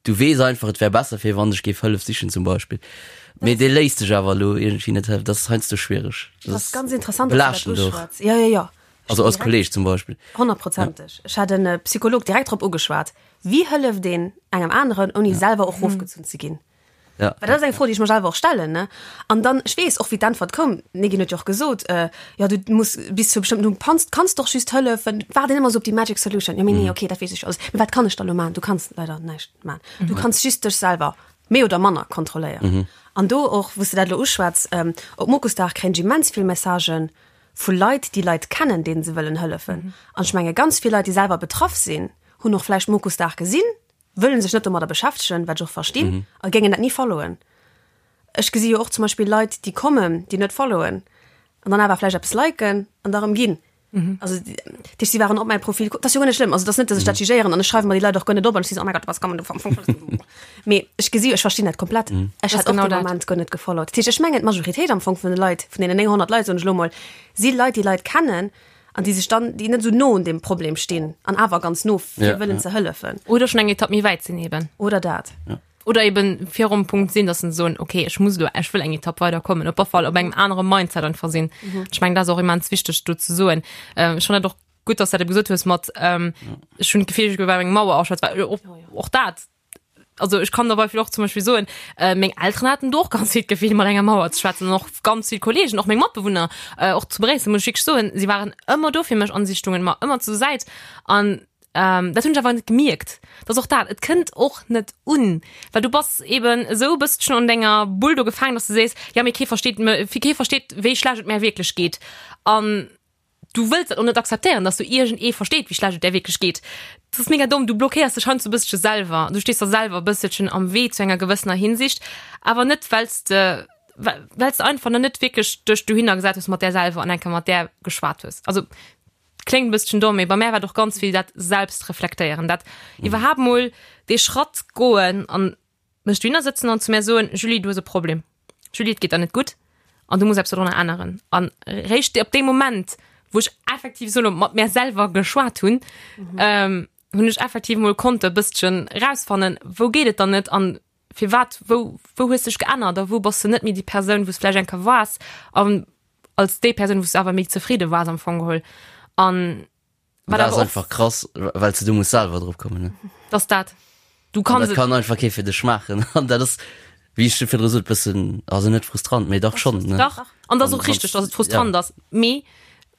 Du weess einfach, et wär besser fir wann ech géif Hëllef sichen zum Beispill. Mee dee léisst sech awer elo iergendwéi net hëllefen. Dat ass heiansdo schwiereg. Dat ass ganz interessant, dass du dat uschwätz. Ja, ja, ja. Also als Kolleg zum Beispill. Honnertprozenteg. Ech hat en Psycholog direkt drop ugeschwat. Wéi hëlleft een engem aneren, ouni selwer och rofgezunn ze ginn? Ja. Well dat ass eng Fro, déi ech mer selwer och stellen, ne? An dann, ech weess och, wéi d'Äntwert koum, d'Negin huet jo och gesot, äh, jo, du muss bis zu bestëmmten Punkt kanns, kanns doch just hëllefen, waarden ëmmer esou op déi magic solution. Jo, mee nee, okay, dat weess ech alles. Mee wat kann ech da elo maachen? Du kanns leider näischt maachen. Du kanns just dech selwer méi oder manner kontrolléieren. An do och, wou s de dat elo uschwätz, ähm, op Mokusdag kréien ech immens vill Messagen vu Leit, déi Leit kennen, deenen se wëllen hëllefen. An ech menge ganz vill Leit, déi selwer betraff sinn, hunn och vläicht Mokusdag gesinn, wëllen sech net domadder beschäftegen, wat ech och verstinn, a géingen dat ni followen. Ech gesi jo och zum Beispill Leit, déi kommen, déi net followen an dann awer vläicht eppes liken an da rëm ginn. Also dat heescht, si waren op mäi Profil, dat ass jo guer net schlëmm, also dat ass net, datt ech dat jugéieren an ech schreiwe mer déi Leit och guer net op an ech si sou, oh mäi Gott, was kann man do am Fong Mee ech gesi jo, ech verstinn dat komplett. Ech hätt och dee Moment guer net gefollowt. Dat heescht, ech mengen d'Majoritéit am Fong vun de Leit, vun deenen 900 Leit, soen ech elo mol, si Leit, déi Leit kennen, An déi sech dann, déi net esou no un deem Problem stinn an awer ganz no fir ja, wëllen ja. ze hëllefen. Oder schon eng Etapp méi wäit sinn eben. Oder dat. Ja. Oder eben virum Punkt sinn, dass se soen, okay, ech muss lo, ech wëll eng Etapp weiderkommen, op alle Fall op engem anere Mindset einfach sinn. Mhm. Ech meng, dat ass och immens wichteg do ze soen. Ähm, ech fand dat och gutt, dass du dat gesot hues mat, ähm, ja. ech hunn d'Gefill, ech gouf eng Mauer aschwätz, well och, oh, ja. och dat, also ech kann der Beispiel och zum Beispiel soen, äh, meng Elteren haten do och ganz vill d'Gefill mat enger Mauer ze schwätzen an och ganz vill Kollegen, och meng Matbewunner, äh, och zu Bréissel muss ech wierklech soen, si waren ëmmer do fir mech an si stungen mer ëmmer zur Säit an ähm, dat hunn ech awer net gemierkt. Dat ass och dat, et kënnt och net un, well du bass eben esou e bësschen an denger Bull do gefaangen, dass du sees, ja mee kee versteet me, kee versteet wéi schlecht et mär wierklech geet an Du wëlls dat och net akzeptéieren, dass du iergend ee versteet, wéi schlecht et där wierklech geet. Dat ass mega domm. Du blockéiers dech heiansdo e bësselche selwer. Du stees der selwer e bësselchen am Wee zu enger gewëssener Hinsicht, awer net well s de, well s de einfach nach net wierklech dech dohinner gesat hues mat där selwer an eng Kéier mat där geschwat hues. Also, kléngt e bësselchen domm, mee bei mär war et och ganz vill dat Selbstreflektéieren, dat iwwerhaapt mol dee Schratt goen an mech dohinner sëtzen an zu mär soen, Julie, du hues e Problem. Julie, et geet der net gutt an du muss eppes dodrunner änneren. An réischt op deem Moment, wou ech effektiv solo mat mär selwer geschwat hunn, ähm, hunn ech effektiv mol konnte e bësschen rausfannen, wou geet et dann net an firwat, wou, wou hues dech geännert a wou bass de net méi déi Persoun, wou s vläicht eng Kéier waars an als déi Persoun, wou s de awer méi zefridde waars am Fong geholl. An Wat ass einfach krass, well du muss selwer drop kommen. Ne? Das dat. Du kannst dat kann einfach kee fir dech maachen. An dat ass. Wéi ech virdru sot, bëssen, also net frustrant, mee dach schonn, ne? Dach, an dat ass och richteg, dass et frustrant ass. Mee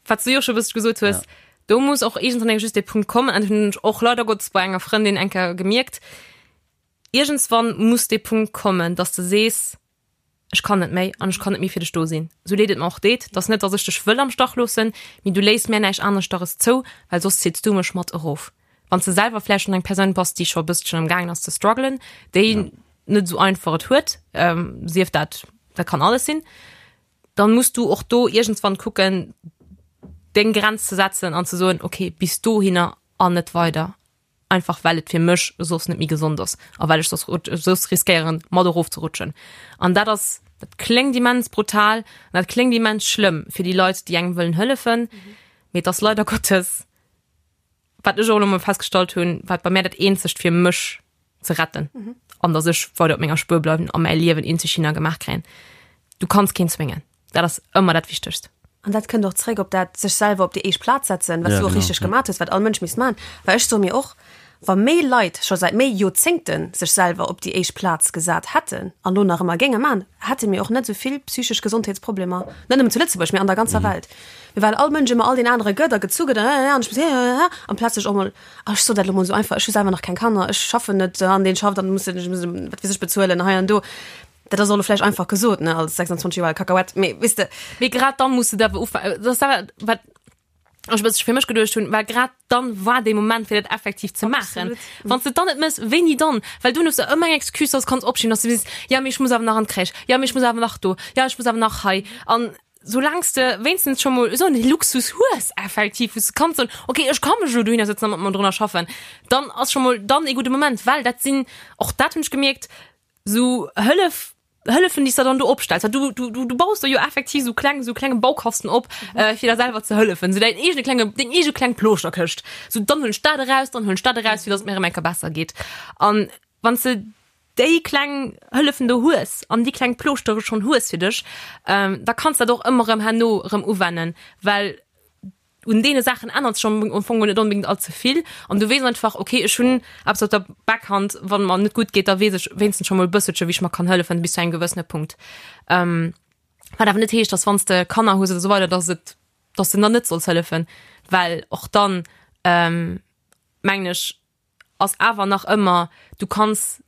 wat s du jo scho e bëssche gesot hues, do muss och iergendwann eng just dee Punkt kommen, an dat hunn ech och leider Gottes bei enger Frëndin eng Kéier gemierkt, iergendswann muss dee Punkt kommen, dass de sees, ech kann net méi an ech kann net méi fir dech do sinn. Sou leed et mer och deet, 't ass net, dass ech dech wëll am Stach loossen, mee du léiss mär näischt aneschteres zou, well soss zitts du mech mat erof. Wann s de selwer vläicht schonn eng Persoun bass, déi scho e bësschen am gaangen ass ze struggelen, déi net esou einfach et huet, sief dat, dat kann alles sinn, dann muss du och do iergendswann kucken, deng Grenz ze setzen an ze soen, okay, bis dohinner an net weider, einfach well et fir mech soss net méi gesond ass a well ech soss soss riskéieren, mat erofzerutschen. An dat ass, dat kléngt immens brutal an dat kléngt immens schlëmm fir déi Leit, déi engem wëllen hëllefen, mee et ass leider Gottes, wat ech och elo mol festgestallt hunn, wat bei mär dat eenzegt fir mech ze retten mhm. an dass ech weider op menger Spuer bleiwen a mäi Liewen eenzeg hinner gemaach kréien. Du kanns keen zwéngen. Dat ass ëmmer dat Wichtegst. An dat kënnt och zréck op dat sech selwer op déi éischt Plaz setzen, wat ja, du och richteg ja. gemaach hues, wat all Mënsch misst man. Well ech soe mir och, wa méi Leit scho säit méi Joerzéngte sech selwer op déi éischt Plaz gesat hätten an lo nach ëmmer géinge man, hätte mir och net esou vill psychesch Gesondheetsproblemer, net nëmmen zu Lëtzebuerg, mee an der ganzer mhm. Welt. Mee well all Mënsch ëmmer all deen anere gëtt a gezu gëtt an ech muss amplaz sech och mol Ach, ech sot dat elo mol esou einfach, ech hu selwer nach keng Kanner, ech schaffen net an deen schafft an muss ech muss wat weess ech bezuelen hei an do. Dat ass och elo vläicht einfach gesot, ne, als 26 Joer al Kakahuett, mee weess de. Mee grad dann muss de awer ufa-, dat ass awer wat ech e bëssche fir mech geduecht hunn, well grad dann war dee Moment fir dat effektiv ze maachen. Wann s de et dann net méchs, wéini dann? Well dunn hues de ëmmer eng Excuse, dass du kanns opschieben, dass du sees, jo mee ech muss awer nach an d'Crèche, jo mee ech muss awer nach do, jo ech muss awer nach hei an Soulaangs de wéinstens scho mol esou en Luxus hues effektiv, wou s de kanns soen, okay, ech ka mech elo dohinner sëtzen a mat mer drunner schaffen, dann ass scho mol dann ee gudde Moment, well dat sinn, och dat hunn ech gemierkt, esou Hëllef, Hëllefen, déi s de dann do opstells, well du, du, du, du baus der jo effektiv esou kleng, esou klenge Baukasten op, fir der selwer ze hëllefen, esou däin eegene klenge, deng eege kleng Plooschter-Këscht, esou dann huelen ech dat eraus, dann huelen ech dat eraus, fir datt et mir erëm eng Kéier besser geet. An wann s de déi kleng Hëllefen do hues an déi kleng Plooschtere schonn hues fir dech, da kanns dat och ëmmer erëm herno erëm uwennen, well un deene Saachen ännert sech am Fong net onbedéngt all ze vill an du weess einfach, okay, ech hunn eppes op der Backhand, wann et mer net gutt geet, da weess ech wéinstens scho mol e bësselche wéi ech mer kann hëllefen bis zu engem gewëssene Punkt. Wat awer net heescht, dass wann s de Kanner hues oder esou weider, dass et, dass de dann net solls hëllefen, well och dann mengen ech, ass awer nach ëmmer, du kanns,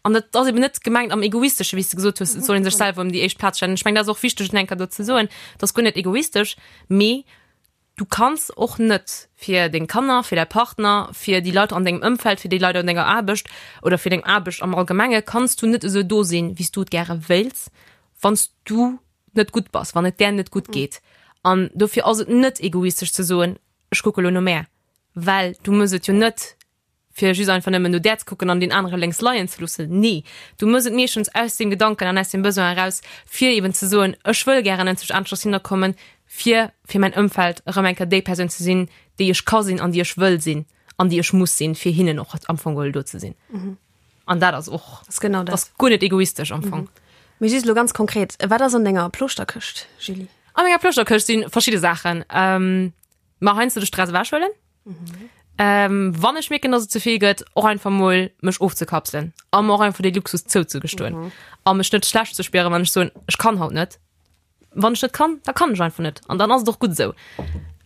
an dat ass eben net gemengt am Egoistesche, wéi s de gesot hues, et soll ee sech selwer ëm déi éischt Plaz stellen. Ech mengen, dat ass och wichteg, et eng Kéier do ze soen, dat ass guer net egoistesch, mee du kanns och net fir deng Kanner, fir däi Partner, fir déi Leit an dengem Ëmfeld, fir déi Leit an denger Aarbecht oder fir deng Aarbecht am Allgemenge kanns du net esou do sinn, wéi s du et gäre wéilts, wann s du net gutt bass, wann et där net gutt geet. An dofir ass et net egoistesch ze soen, ech kucke lo no mär. Well du mëss et jo net, fir just einfach nëmmen no där ze kucken an deen anere lénks leien ze loossen. Nee, du mëss et meeschtens aus deem Gedanken an aus deem Besoin eraus, fir eben ze soen, ech wëll gären enzwousch aneschters hinnerkommen, fir fir mäin Ëmfeld erëm eng Kéier déi Persoun ze sinn, déi ech ka sinn an déi ech wëll sinn an déi ech muss sinn, fir hinnen och am Fong geholl do ze sinn. An dat ass och, Das ist genau dat ass guer net egoistesch am Fong. Mee just elo ganz konkret, wat ass an denger Ploschterkëscht, Julie? An menger Ploschterkëscht si verschidde Saachen. Ma heiansdo de Stress ewechhuelen. Mhm. Ähm, wann ech mierken, dass et ze vill gëtt, och einfach mol mech ofzekapselen a mer och einfach dee Luxus zouzegestoen mhm. a mech net schlecht ze spieren, wann ech soen, ech kann haut net. Wann ech net kann, da kann ech einfach net an dann ass et och gutt esou.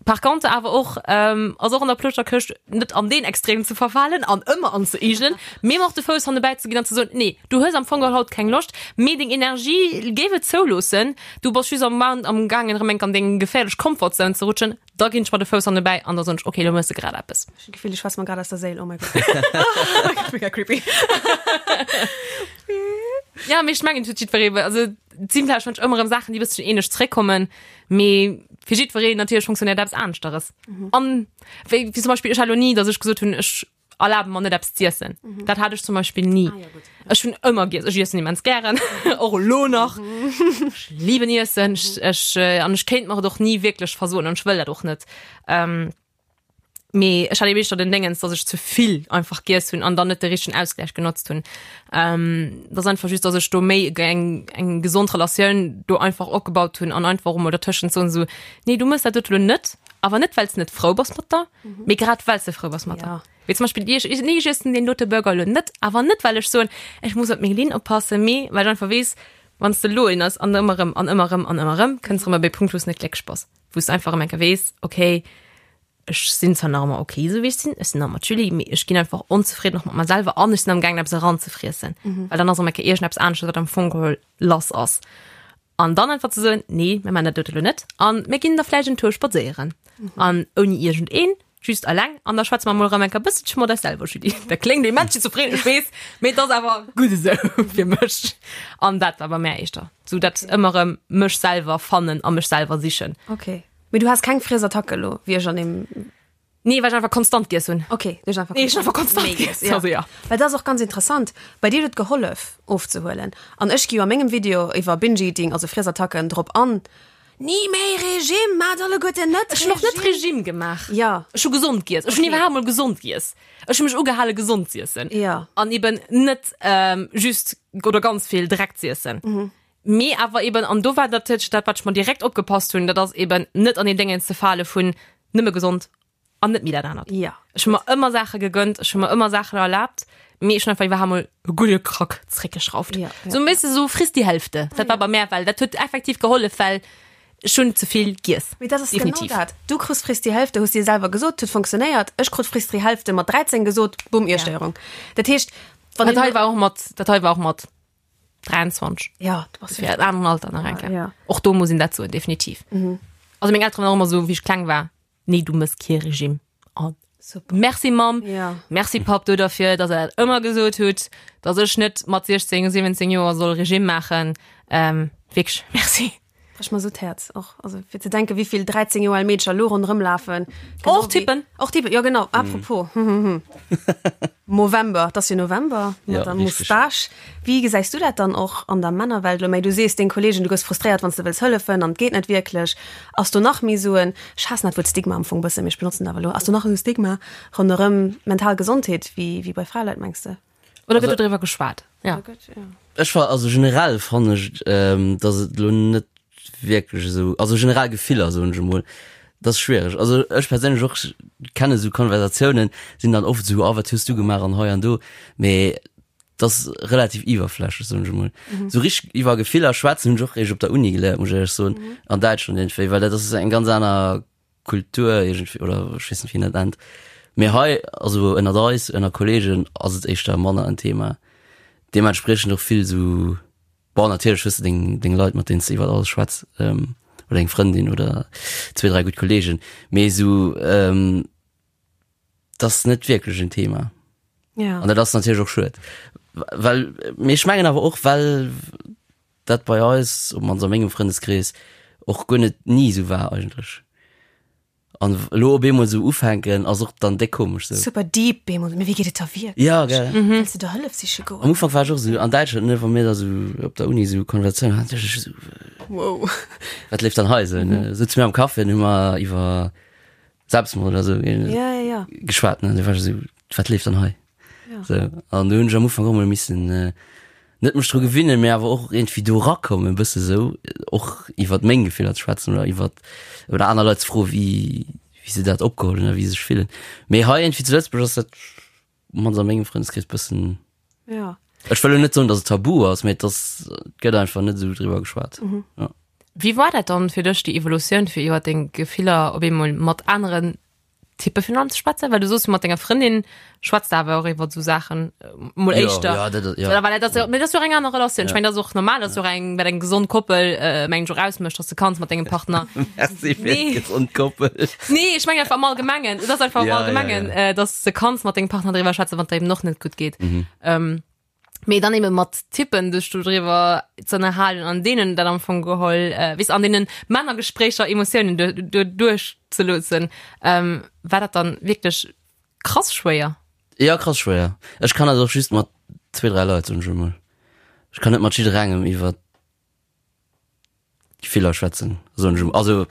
Par contre awer och ähm, ass och an der Ploschterkëscht net an deen Extrem ze verfalen an ëmmer anzeigelen, mee mer och de Fouss hannebäi ze ginn an ze soen, nee, du hues am Fong geholl haut keng Loscht, mee deng Energie géif et zouloossen, du bass just am am gaangen erëm enk an deng geféierlech Comfort Zone ze rutschen, da ginn ech mer de Fouss hannebäi an da soen ech, okay, lo méchs de grad eppes. Ech hunn d'Gefill, du schwätz mer grad aus der Séil, oh my God. Mega creepy. Ja, mee ech mengen, et huet jiddweree, also et sinn vläicht manch ëmmer erëm Saachen, déi e bësschen ähnlech zeréckkommen, mee fir jiddwereen natierlech funktionéiert eppes aneschteres. An wéi, wéi zum Beispill, ech hat lo ni, datt ech gesot hunn, ech erlabe mer net eppes z'iessen. Mhm. Dat hat ech zum Beispill ni. Ah, ja, gut. Ech hunn ëmmer giess. Ech iessen immens gären, och elo nach. Ech liben Iessen. Ech, ech, äh, an ech kéint mer et och ni wierklech versoen an ech wëll dat och net. Ähm, mee ech hat eben éischter den Déngens, dass ech ze vill einfach giess hunn an dann net de richtegen Ausgleich genotzt hunn. Ähm, dat ass einfach just, dass ech do méi eng, eng gesond Relatioun do einfach opgebaut hunn an einfach och emol dertëschent soen, esou, nee, du mëss dat dote lo net, awer net well s de net frou bass mat der, mee grad well s de frou bass mat der. Ja. Wéi zum Beispill ech, ech, nee, ech iessen deen dote Burger elo net, awer net well ech soen, ech muss op meng Linn oppassen, mee well ech einfach weess, wann s de elo een ëss an ëmmer erëm an ëmmer erëm an ëmmer erëm, kënns erëm op ee Punkt, wou s de net glécklech bass, wou s de einfach erëm eng Kéier weess, okay, ech sinn zwar nach ëmmer okay esou wéi ech sinn, ech sinn nach ëmmer d'Julie, mee ech ginn einfach onzefridden och mat mer selwer an ech sinn am gaangen eppes eranzefriessen, well dann ass erëm eng Kéier iergendeppes anesches, wat am Fong geholl lass ass. An dann einfach ze soen, nee, mir maachen dat dote lo net an mir ginn da vläicht en Tour spadséieren. An ouni iergendeen, just alleng. An da schwätze mer mol erëm eng Kéier e bësselche mat eis selwer, Julie. Dat kléngt immens schizophren, ech weess, mee et ass awer gutt esou fir mech. An dat war bei mär éischter sou dat ëmmer erëm mech selwer fannen a mech selwer sichen. Okay. Mee du has keng Friesattack elo, wéi ech an deem. Nee, well ech einfach konstant giess hunn. Okay, du hues einfach Nee, ech hunn einfach konstant méi giess. giess, ja. Also ja. Well dat ass och ganz interessant. Bei dir huet et gehollef ofzehuelen. An ech gi jo a mengem Video iwwer Binge-Eating, also Friesattacken, drop an, Ni méi Regime, maacht alleguerten net Ech hunn och net Regime gemaach. Ja. Ech hu gesond giess. Ech hunn Okay. iwwerhaapt mol gesond giess. Ech hu mech ugehale gesond z'iessen. Ja. An eben net ähm, just oder ganz vill Dreck z'iessen. Mee awer eben, an do war natierlech dat, wat ech mer direkt opgepasst hunn, dat ass eben net an deen Déngens ze fale vun nëmme gesond an net méi dat anert. Ja. Ech hu mer ëmmer Saache gegönnt, ech hu mer ëmmer Saachen erlaabt, mee ech hunn einfach iwwerhaapt mol e gudde Krack zréckgeschrauft. Ja, ja. Sou, weess de, sou friss die Hälfte. Dat war bei mär, well dat huet effektiv gehollef, well ech hunn ze vill giess. Mee dat ass genau Definitiv. dat. Du krus friss die Hälfte, hues dir selwer gesot, huet funktionéiert. Ech krut friss die Hälfte mat 13 gesot, bumm, Iesstéierung. Dat heescht, wann Dat een hei war och mat, dat hei war och mat 23. Ja, du bass Fir en aneren Alter nach eng Kéier. Ja. Och do muss een dat soen, definitiv. Also meng Elteren waren och ëmmer esou, wéi ech kleng war, nee, du mëss kee Regime. An Super. merci Mamm, Ja. merci Papp do derfir, dass der dat ëmmer gesot hutt, dass ech net mat 16, 17 Joer soll Regime maachen. Ähm, wierklech, merci. Brech mer sou d'Häerz och, also fir ze denken, wéi vill 13 Joer al Meedercher elo ronderëm lafen. Genau Och Typen. wéi- Och Typen, jo genau. Apropos, Movember, et ass jo November, mat Ja, der richtig. Moustache. Wéi gesäis du dat dann och an der Männerwelt elo méi? Du sees deng Kollegen, du gëss frustréiert, wann s de wëlls hëllefen an et geet net wierklech. Ass do nach méi sou en, ech haassen dat Wuert Stigma am Fong bëssen, mee ech benotzen et awer elo, ass do nach esou Stigma ronderëm mental Gesondheet wéi wéi bei Fraleit, mengs de? Oder gëtt do driwwer geschwat? Ja. Ech war also generell fannen ech, dass et elo net wierklech esou, also generell Gefiller soen ech emol, dat ass schwiereg. Also ech perséinlech och kenne sou Konversatiounen, sinn dann oft esou, ah wat hues du gemaach an hei an do, mee dat ass relativ iwwerflächlech soen ech emol. Sou richteg iwwer Gefiller schwätzen hunn ech och eréischt op der Uni geléiert, muss ech éierlech soen, an Däitschland iergendwéi, well dat ass eng ganz aner Kultur iergendwéi oder ech weess net wéi een dat nennt. Mee hei, also ënnert eis, ënner Kollegen ass et éischter manner en Thema. Deementspriechend och vill sou, bon natierlech hues de deng deng Leit mat deenen s de iwwer alles schwätz oder eng Frëndin oder zwee, dräi gutt Kollegen, mee sou et ass net wierklech en Thema. Ja. An dat ass natierlech och schued. Well, mee ech mengen awer och well dat bei eis, op mannst a mengem Frëndeskrees, och guer net ni esou war eigentlech. An elo op eemol esou ufänken ass och dann déck komesch sou. Super deep bemol, mee wéi geet et der wierklech? Ja, gell. Wëlls de der Hëllef siche goen? Am Ufank war ech och esou, an Däitschland, ne, wa mir da sou op der Uni sou Konversatiounen haten, duecht ech esou, Wow. wat leeft dann hei sou, ne? Souze mir am Café an hu mer iwwer Selbstmord oder sou Ja, ja, ja. geschwat, ne, du war ech esou, wat leeft dann hei? Ja. So, an do hunn ech am Ufank och mol missen äh, net mech dru gewinnen, mee awer och irgendwie do rakommen, e bësse sou, och iwwer meng Gefiller ze schwätzen oder iwwer oder aner Leit ze froen, wéi wéi se dat opgeholl hunn a wéi se sech fillen. Mee hei irgendwie zu Lëtzebuerg ass dat mannst a mengem Frëndeskrees bëssen Ja. Ech wëll lo net soen, datt et tabu ass, mee et ass, et gëtt einfach net esou driwwer geschwat. Mhm. Ja. Wéi war dat dann fir dech, déi Evolutioun, fir iwwer deng Gefiller op eemol mat aneren Typpe virun allem ze schwätzen? Well du soos jo mat denger Frëndin schwätzt de awer och iwwer esou Saachen, mol Jo, éischter. ja, dat, ja. Oder well dat ass jo, mee dat ass jo och eng aner Relatioun. Ech Ja. mengen, dat ass och normal, dat ass jo och eng, wat eng gesond Koppel, mengen ech, och ausmécht, dass de kanns mat dengem Partner. Merci fir Nee. d'gesond Koppel. Nee, ech mengen einfach am Allgemengen. Et ass einfach am Ja, ja, Allgemengen, ja. äh, dass de kanns mat dengem Partner driwwer schwätzen, wann et der eben och net gutt geet. Mhm. Ähm, mee dann eben mat Typpen dech do driwwer ze ënnerhalen an deenen dat am Fong geholl, äh, weess, an deenen Männergespréicher Emotiounen du, du, duerchzeloossen, ähm, war dat dann wierklech krass schwéier? Ja, krass schwéier. Ech kann dat och just mat zwee, dräi Leit, soen ech emol. Ech kann net mat jidderengem iwwer Gefiller schwätzen, soen ech emol. Also,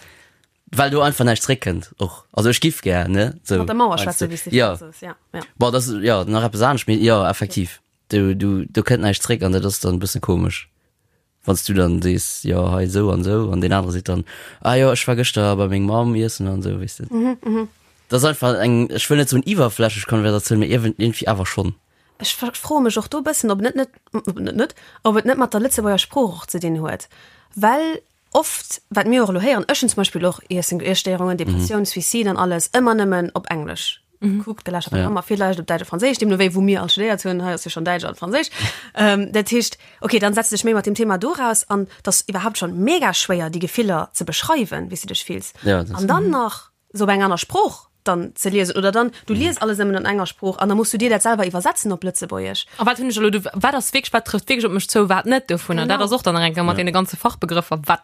well do einfach näischt zréckkënnt och. Also ech giff gär, ne, sou. Mat der Mauer Meinst schwätzen, du? wéi s de Ja. virdu soos, ja, ja. Bon, dat ass, jo, nach eppes anescht, mee jo, effektiv. Du, du, do kënnt näischt zréck an dat ass dann e bësse komesch, wann s du dann sees, jo, hei esou an esou an deen anere seet dann, ah jo, ech war gëschter bei meng Mamm iessen an esou, weess de. Dat ass einfach eng, ech wëll net soen iwwerflächlech Konversatioun, mee iergendwéi awer schonn. Ech froe mech och do e bëssen, ob net net, ob net net, ob et net mat der Lëtzebuerger Sprooch och ze dinn huet, well oft, wat mir och elo héieren, ech hunn zum Beispill och Iessen, Iesstéierungen, Depressioun, Suicide an alles ëmmer nëmmen op Englesch gekuckt, geläschert, wat och ëmmer, villäicht op Däitsch a Franséisch, deemno wéi wou mir all studéiert hunn, hei ass jo schonn Däitsch an Franséisch. Dat heescht, okay, dann setz dech méi mat deem Thema doraus an 't ass iwwerhaapt schonn mega schwéier, déi Gefiller ze beschreiwen, wéi s de dech fills. An dann nach se op eng aner Sprooch dann ze liesen oder dann du lies alles nëmmen an enger Sprooch an da muss du dir dat selwer iwwersetzen op Lëtzebuergesch. A wat hunn ech elo do, wat ass wierklech, wat trëfft wierklech op mech zou, wat net dovunner? Dat ass och dann nach eng Kéier mat deene ganze Fachbegrëffer, wat,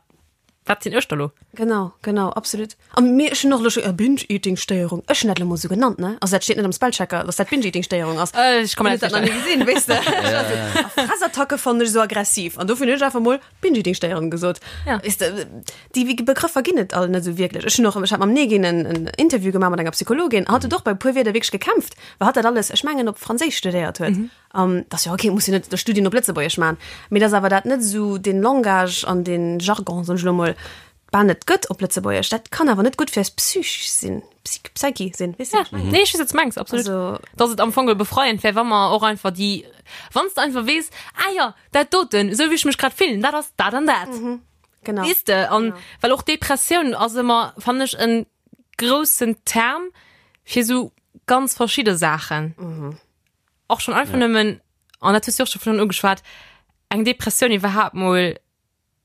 wat sinn ech da lo? Genau, genau, absolut. A mir, ech hunn och elo scho Binge-Eating-Stéierung, ech hunn dat elo mol esou genannt, ne? Also dat steet net am Spellchecker, dass dat Binge-Eating-Stéierung ass. Ech ka mer dat nach ni gesinn, weess de. A Fressattacke fannen ech esou aggressiv an dofir hunn ech einfach mol Binge-Eating-Stéierung gesot. Ja. Weess de, déi Begrëffer ginn et all net esou wierklech. Ech hunn och, ech hat mam Negin en, en Interview gemaach mat enger Psychologin, hatt huet och bei e puer Wierder wierklech gekämpft, well hatt dat alles, ech mengen, op Franséisch studéiert huet. An dat ass jo ok, muss jo net de Studien op Lëtzebuergesch maachen, mee dass awer dat net esou dee Langage an dee Jargon, soen ech elo mol, bal net gëtt op Lëtzebuergesch, dat kann awer net gutt fir eis Psych sinn, Psych, Psyche sinn, weess de, Ja, wat ech mengen? nee, ech weess, wat s de mengs, absolut. Also. Dass et am Fong geholl befreiend wär, wa mer och einfach déi, wann s de einfach weess, ah jo, dat doten, esou wéi ech mech grad fillen, dat ass dat an dat. Genau. Weess de, an well och Depressioun ass ëmmer, fannen ech, en groussen Term fir esou ganz verschidde Saachen. Och schonn einfach nëmmen, an dat hues du och scho virun ugeschwat, eng Depressioun iwwerhaapt mol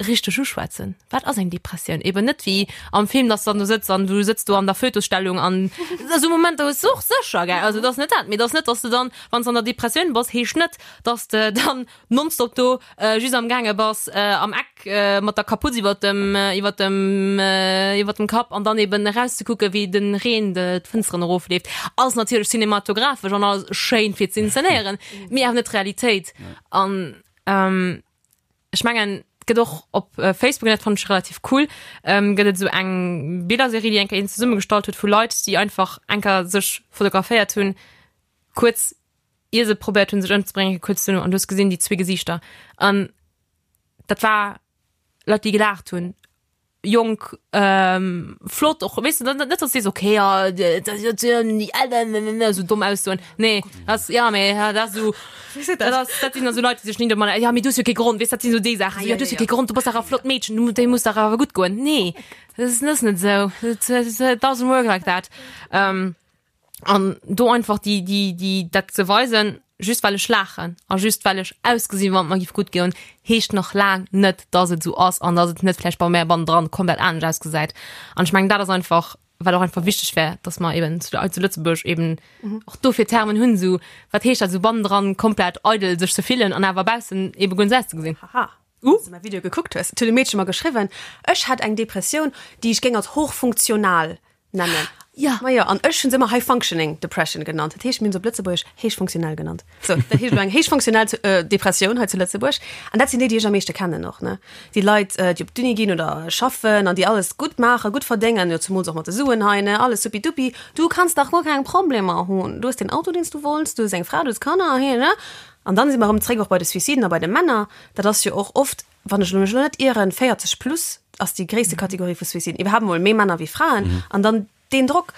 richteg uschwätzen. Wat ass eng Depressioun? Eben net wéi am Film, dass du dann do sëtz an du sëtz do an der Fötusstellung an esou Momenter hues du och sécher, gell? Also dat ass net dat, mee dat ass net, dass du dann, wann s de an der Depressioun bass, heescht net, dass de dann nonstop do just am gaange bass am Eck mat der Kaputz iwwert dem iwwert dem iwwert dem Kapp an dann eben erauszekucke wéi de Reen d'Fënsteren erofleeft. Ass natierlech cinematographesch an alles schéin fir ze inszenéieren, mee awer net d'Realitéit. An ech mengen et gëtt och op Facebook, an dat fannen ech relativ cool, gëtt et esou eng Billerserie, déi eng Kéier een zesummegestallt huet vu Leit, déi einfach eng Kéier sech fotograféiert hunn, kuerz ier se probéiert hunn sech ëmzebréngen, kuerz duerno, an du hues gesinn déi zwee Gesiichter an dat war Leit, déi gelaacht hunn, jonk, flott och, weess de, net dass du sees, okay, ja, esou domm Aussoen, nee, dat ass, ja, mee dat ass esou, dat ass, dat sinn da sou Leit, déi sech ni domadder, ja, mee du hues jo kee Grond, weess, dat sinn esou déi Saachen, esou, ja, du hues jo kee Grond, du bass dach e flott Meedchen, du, dir muss dach awer gutt goen. Nee, dat ass net esou, it doesn't work like that. An do einfach déi, déi, déi, dat ze weisen, just well ech laachen a just well ech ausgesinn, wann et mer giff gutt goen, heescht nach laang net, dass et esou ass an dass et net vläicht bei mär bannendran komplett anescht ausgesäit. An ech mengen, dat ass einfach, wat och einfach wichteg wär, dass mer eben zu, zu Lëtzebuerg eben och dofir Termen hunn, esou, wat heescht dat esou bannendran komplett eidel sech ze fillen an awer baussen ebe guer net esou auszegesinn. Haha. Uh. Wann s de mäi Video gekuckt hues, et huet e Meedche mer geschriwwen, ech hätt eng Depressioun, déi ech géing als hochfunktional nennen. Ja. Ma jo, an ech hunn se ëmmer High Functioning Depression genannt. Dat heescht, mir hunn se op Lëtzebuergesch héichfunktionell genannt. Sou, dat heescht elo eng héichfunktionell Depressioun hei zu Lëtzebuerg. An dat sinn déi, déi ech am meeschte kennen och, ne? Déi Leit, déi op d'Uni ginn oder schaffen an déi alles gutt maachen, gutt verdéngen, jo zemools och mat de Suen hei, ne, alles supidupi. Du kanns dach guer keng Problemer hunn. Du hues deen Auto, deen s du wollts, du hues eng Fra, du hues Kanner, he, ne? An dann si mer erëm zréck och bei de Suiciden a bei de Männer. Dat ass jo och oft, wann ech mech elo net ieren, 40 plus ass déi gréisste Kategorie vu Suiciden. Iwwerhaapt emol méi Männer wéi Fraen. An dann deen Drock.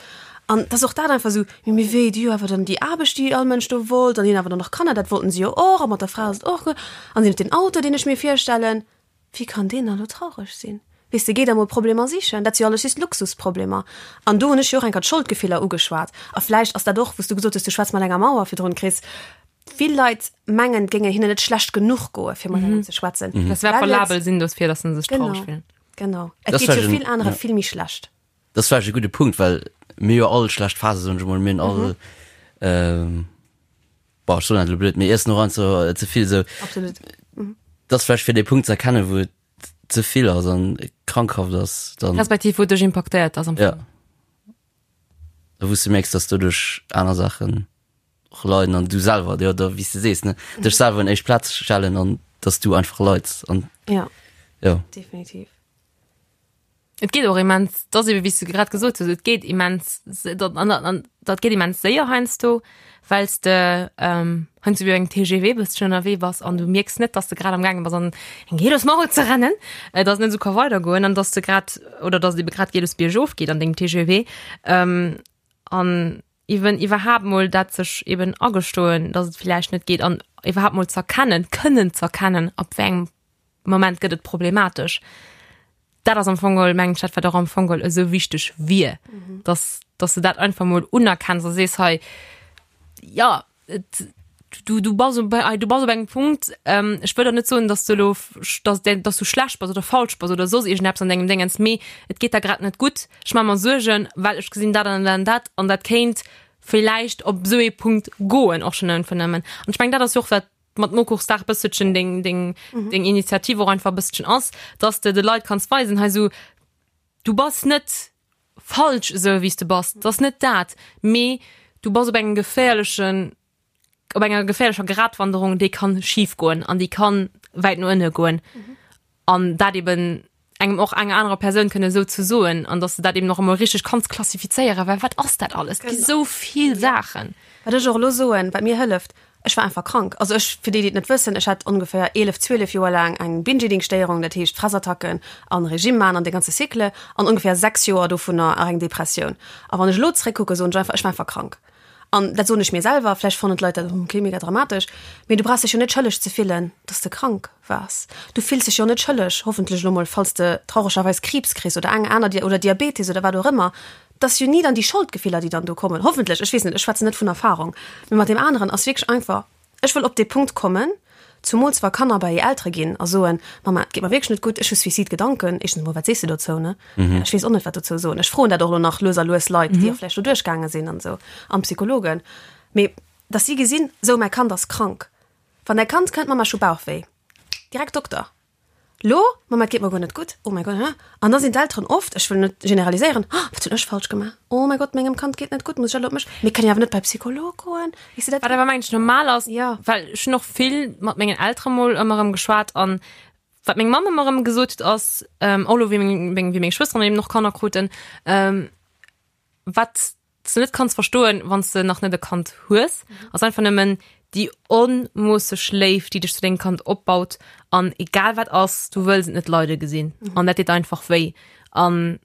An dass och dat einfach esou, mee mee wéi, déi hu awer dann déi Aarbecht, déi all Mënsch do wollt, an déi hunn awer dann och Kanner, dat wollten se jo och, a mat der Fra ass et och gutt, an si hunn den Auto, deen ech mir virstellen. Wéi kann deen da lo traureg sinn? Weess de, géi der mol Problemer sichen, dat si jo alles just Luxusproblemer. An do hunn ech jo och eng Kéier d'Scholdgefiller ugeschwat. A vläicht ass dat och, wou s du gesot hues, du schwätz mat enger Mauer virdrun, Chris, Vill Leit mengen, et géinge hinnen net schlecht genuch goe fir mat engem ze schwätzen. Dass se valabel sinn dofir, dass se sech traureg fillen. Genau. Et geet jo vill anere vill méi schlecht. Dat ass vläicht e gudde Punkt, well mir jo all schlecht Phase, soen ech emol, mir hunn all, bon, ech soen dat elo blöd, mir iessen och einfach ze vill esou. Absolut. Dat ass vläicht fir dee Punkt ze erkennen, wou et ze vill ass an krankhaft ass, dann. Respektiv wou et dech impaktéiert ass am Fong. Ja. A wou s de mierks, dass doduerch aner Saachen och leiden an du selwer, jo, da wéi s de sees, ne, dech selwer un éischt Plaz stellen an dass du einfach leids an Ja. jo. Definitiv. Et geet och immens, dat ass ebe wéi s du grad gesot hues, et geet immens, dat an an dat geet immens séier heiansdo, well s de heiansdo wéi engem TGV bësschen ënnerwee bass an du mierks net, dass de grad am gaange bass an eng Gelos Maul ze rennen, dass et net esou ka weidergoen an dass de grad oder dass et ebe grad Gelos biergof geet an dengem TGV. An eben iwwerhaapt mol dat sech eben agestoen, dass et villäicht net geet an iwwerhaapt mol z'erkennen, kënnen z'erkennen, ab wéi engem Moment gëtt et problematesch. Dat ass am Fong geholl, mengen ech, dat wat och am Fong geholl esou wichteg wier, dass, dass de dat einfach mol unerkenns a sees, hei, jo, et, du, du bass op, du bass op engem Punkt, ähm, ech wëll der net soen, dass du elo, dass, dass du schlecht bass oder falsch bass oder soss iergendeppes an dengem Déngens, mee et geet der grad net gutt, ech maache mer Suergen, well ech gesinn dat an dat an dat an dat kéint villäicht op esou ee Punkt goen och schonn einfach nëmmen. An ech mengen, dat ass jo och wat mat Mokuchsdag bësselchen deng, deng, mhm. deng Initiativ och einfach bësselchen ass, dass de de Leit kanns weisen, hei so, du bass net falsch esou wéi s de bass, dat ass net dat, mee du bass op engem geféierlechen, op enger geféierlecher Gratwanderung, déi kann schif goen an déi kann wäit no ënne goen. Mhm. An dat eben engem och enger anerer Persoun kënne esou ze soen an dass de dat eben och emol richteg kanns klassifizéieren, well wat ass dat alles? Et gi sou vill Saachen. Wat ech och elo soen, wat mir hëlleft, ech war einfach krank. Also ech, fir déi, déi et net wëssen, ech hat ongeféier 11, 12 Joer laang eng Binge-Eating-Stéierung, dat heescht Fressattacken an Regime maachen an de ganze Cycle an ongeféier 6 Joer dovunner eng Depressioun. A wann ech elo zeréckkucken, soen ech einfach, ech war einfach krank. An dat soen ech mir selwer, vläicht fannen d'Leit dat ok mega dramatesch, mee du brauchs dech jo net schëlleg ze fillen, dass de krank waars. Du fills dech jo net schëlleg, hoffentlech elo mol, falls de trauregerweis Kriibs kriss oder eng aner oder Diabetes oder wat och ëmmer. Et ass jo ni dann déi Scholdgefiller, déi dann do kommen, hoffentlech, ech weess net, ech schwätzen net vun Erfahrung. Mee mat deem aneren ass wierklech einfach, Ech wëll op dee Punkt kommen, zumools wa Kanner bei hir Eltere ginn a soen, Mama, et geet mer wierklech net gutt, ech hu Suicide-Gedanken. Éischtens emol, wat sees de dozou, ne? Ech weess och net, wat dozou soen. Ech froen dat och elo nach lues a lues Leit, déi och vläicht do duerchgaange sinn an esou, an Psychologen. Mee dass si gesinn, esou, mäi Kand ass krank. Wann däi Kand kënnt, Mama, ech hu Bauchwéi, direkt Dokter. Lo, Mama, et geet mer guer net gutt, oh mäi Gott, hä? An da sinn d'Elteren oft, ech wëll net generaliséieren, oh, wat hunn ech falsch gemaach, oh mäi Gott, mengem Kand geet net gutt, muss ech elo op mech, mir kënnen jo awer net bei Psycholog goen, weess de dat? Wat awer mengen ech normal ass, Ja. well ech hunn och vill mat mengen Eltere mol ëmmer erëm geschwat an wat meng Mamm ëmmer erëm gesot huet ass, och elo wéi meng, wéi meng Schwësteren eben och Kanner kruten, wat s du net kanns verstoen, wann s de nach net e Kand hues, ass einfach nëmmen déi onmoosseg Léift, déi dech zu dengem Kand opbaut an egal wat ass, du wëlls et net leide gesinn an dat deet einfach wéi. An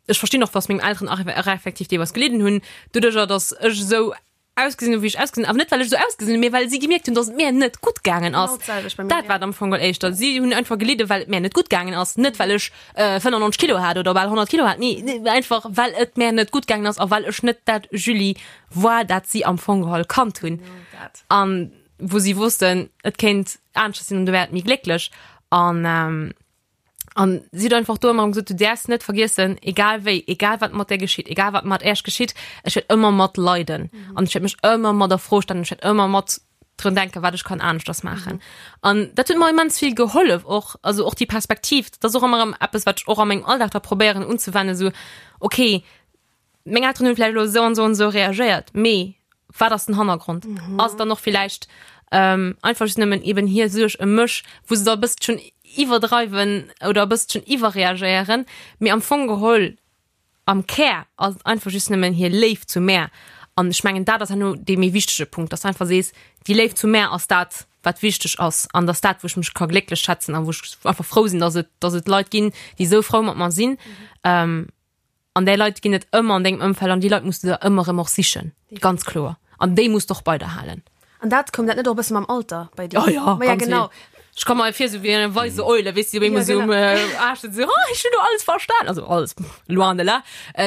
ech verstinn och, dass meng Elteren och effektiv deelweis gelidden hunn, doduercher, dass ech esou ausgesinn hunn, wéi ech ausgesinn hunn, awer net well ech esou ausgesinn hunn, mee well si gemierkt hunn, dass et mir net gutt gaangen ass. Dat war et am Fong geholl éischter. Si hunn einfach gelidden, well et mir net gutt gaangen ass, net well ech 95 Kilo hat oder bal 100 Kilo hat, nee, einfach well et mir net gutt gaangen ass a well ech net dat Julie war, dat si am Fong geholl kannt hunn. An wou si wossten, et kéint aneschters sinn an du wäert méi glécklech. An An si huet einfach do ëmmer gesot, du däerfs net vergiessen, egal wéi, egal wat mat där geschitt, egal wat mat Äech geschitt, ech wäert ëmmer mat leiden an ech wäert mech ëmmer mat a Fro stellen, ech wäert ëmmer mat drun denken, wat ech kann aneschters maachen. An dat huet mer immens vill gehollef och, also och déi Perspektiv, dat ass och ëmmer erëm eppes, wat ech och a mengem Alldag da probéieren unzewennen, esou, okay, meng Elteren hunn vläicht elo esou an esou an esou reagéiert, mee wat ass den Hannergrond? Mhm. Ass et dann och villäicht ähm, einfach just nëmmen eben hir Suerg ëm mech, wou se da e bësselchen iwwerdreiwen oder e bësselchen iwwerreagéieren, mee am Fong geholl, am Kär ass et einfach just nëmmen hir Léift zu mär. An ech mengen, dat ass herno dee méi wichtege Punkt, dass du einfach sees, déi Léift zu mär ass dat, wat wichteg ass an dass dat, wou ech mech ka glécklech schätzen a wou ech einfach frou sinn, dass et, dass et Leit ginn, déi esou frou mat mer sinn. Ähm, An déi Leit ginn et ëmmer an dengem Ëmfeld an déi Leit muss du der ëmmer erëm och sichen, ganz kloer. An déi muss de och bei der halen. An dat, koum dat net och e bësse mam Alter bei dir? Oh ja, Ma ja, ganz genau. vill. Ech komme mer vir esou wéi eng weise Eule, weess de, déi op eemol Ja, esou um genau. Aascht sëtzt, esou, oh, ech hunn elo alles verstan. Also alles, loin de là,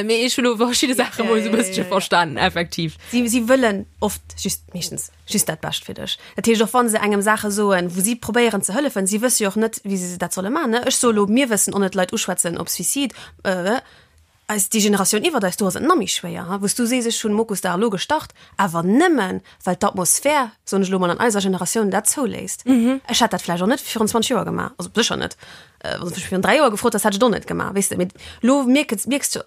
mee ech hunn elo verschidde Saache mol esou e bësselche verstanen, effektiv. Si, si wëllen oft just, meeschtens, just dat Bescht fir dech. Dat heescht, och wa se engem Saache soen, wou si probéieren ze hëllefen, si wësse jo och net, wéi se dat solle maachen, ne? Ech soe lo, mir wëssen och net, Leit uschwätzen op Suicide, eis, déi Generatioun iwwert eis, do ass et nach méi schwéier, ha, wou s du sees, ech hunn Mokusdag elo gestart, awer nëmmen, well d'Atmosphär, soen ech elo mol, an eiser Generatioun dat zouléisst. Ech hätt dat vläicht och net virun 20 Joer gemaach, also sécher net. Wann s de mech virun 3 Joer gefrot häss, hätt ech et och net gemaach, weess de. Mee elo mierkes, mierks du,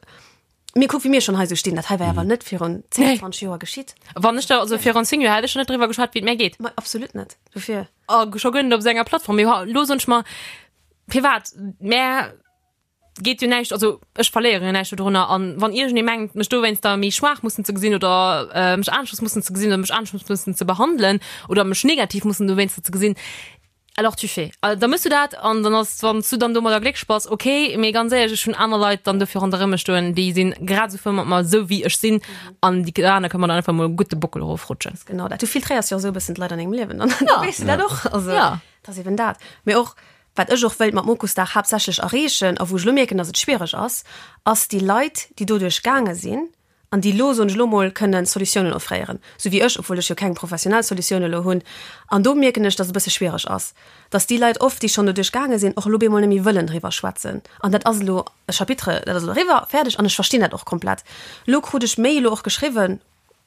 Mee kuck, wéi mir schonn hei sou stinn, dat hei war awer net virun 10, 20 Joer geschitt. Wann ech der, also virun 10 Joer hätt ech schon net driwwer geschwat, wéi et mär geet. Ma absolut net. Dofir. A scho guer net op esou enger Plattform. Mee elo soen ech mer, firwat? Mär geet jo näischt, also ech verléiere jo näischt dodrunner. An wann iergendee mengt, mech dowéinster méi schwaach mussen ze gesinn oder mech aneschters mussen ze gesinn oder mech aneschters mussen ze behandelen oder mech negativ mussen dowéinster ze gesinn. Alors tu fais. Da mëss du dat an dann ass, wann s du dann domadder glécklech bass, ok. Mee ganz éierlech, ech hunn aner Leit dann dofir ronderëm mech stoen, déi sinn grad esou frou mat mer, esou wéi ech sinn an déi aner kënne mer dann einfach mol gutt de Bockel erofrutschen. Genau dat. Du filtréiers jo och esou e bëssen d'Leit an dengem Liewen an da weess du dat och. Also dat ass eben dat. Mee och wat ech och wëilt mat Mokusdag haaptsächlech erreechen a wou ech elo mierken, datt et schwiereg ass, ass déi Leit, déi doduerch gaange sinn, an déi elo, soen ech elo mol, kënnen Solutiounen offréieren, sou wéi ech, obwuel ech jo keng professionell Solutioun elo hunn. An do mierken ech, dass et e bësse schwiereg ass, dass déi Leit oft, déi schonn doduerch gaange sinn, och elo bemol net méi wëllen driwwer schwätzen. An dat ass elo e Chapitre, dat ass elo eriwwer, fäerdeg, an ech verstinn dat och komplett. Elo krut ech méi elo och geschriwwen,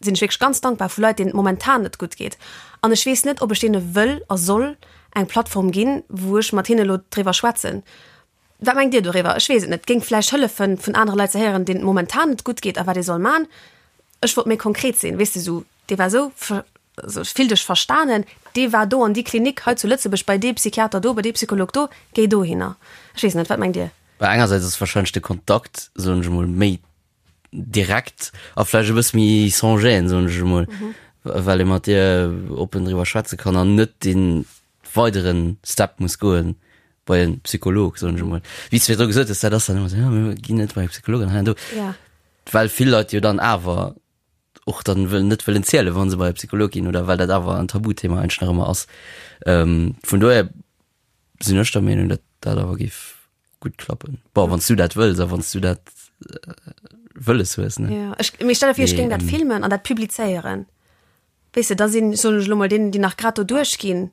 sinn ech wierklech ganz dankbar, vu Leit, deenen et momentan net gutt geet. An ech weess net, ob ech deene wëll a soll eng Plattform ginn, wou ech mat hinne elo driwwer schwätzen. Wat mengt Dir doriwwer? Ech weess et net. Géing vläicht hëllefen, vun anere Leit ze héieren, deenen et momentan net gutt geet a wat ee soll man. Ech wollt méi konkret sinn, weess de, sou, dee war sou, also ech fill dech verstanen, dee war do an déi Klinik hei zu Lëtzebuerg, bei dee Psychiater do, bei dee Psycholog do, géi dohinner. Ech weess net, wat mengt Dir? Well engersäits ass wahrscheinlech de Kontakt, soen ech emol, méi direkt a vläicht e bësse méi sans gêne, soen ech emol, well ee mat dir oppen driwwer schwätze kann an net dee weidere Step muss goen, bei en Psycholog soen ech emol. Wéi s de virdru gesot hues, dat ass dann ëmmer esou, jo mir ginn net bei e Psycholog an hei an do. Ja. Well vill Leit jo dann awer och dann wëll net wëllen zielen, wa se bei e Psycholog ginn oder well dat awer en Tabuthema eigentlech nach ëmmer ass. Vun dohier sinn ech der Meenung, datt dat awer géif gutt klappen. Bon, wann s du dat wëlls a wann s du dat wëlles hues, ne? Ja, ech, mee stell der vir, ech géing dat filmen an dat publizéieren. Weess de, da sinn, soen ech elo mol, deenen, déi nach grad do duerchginn,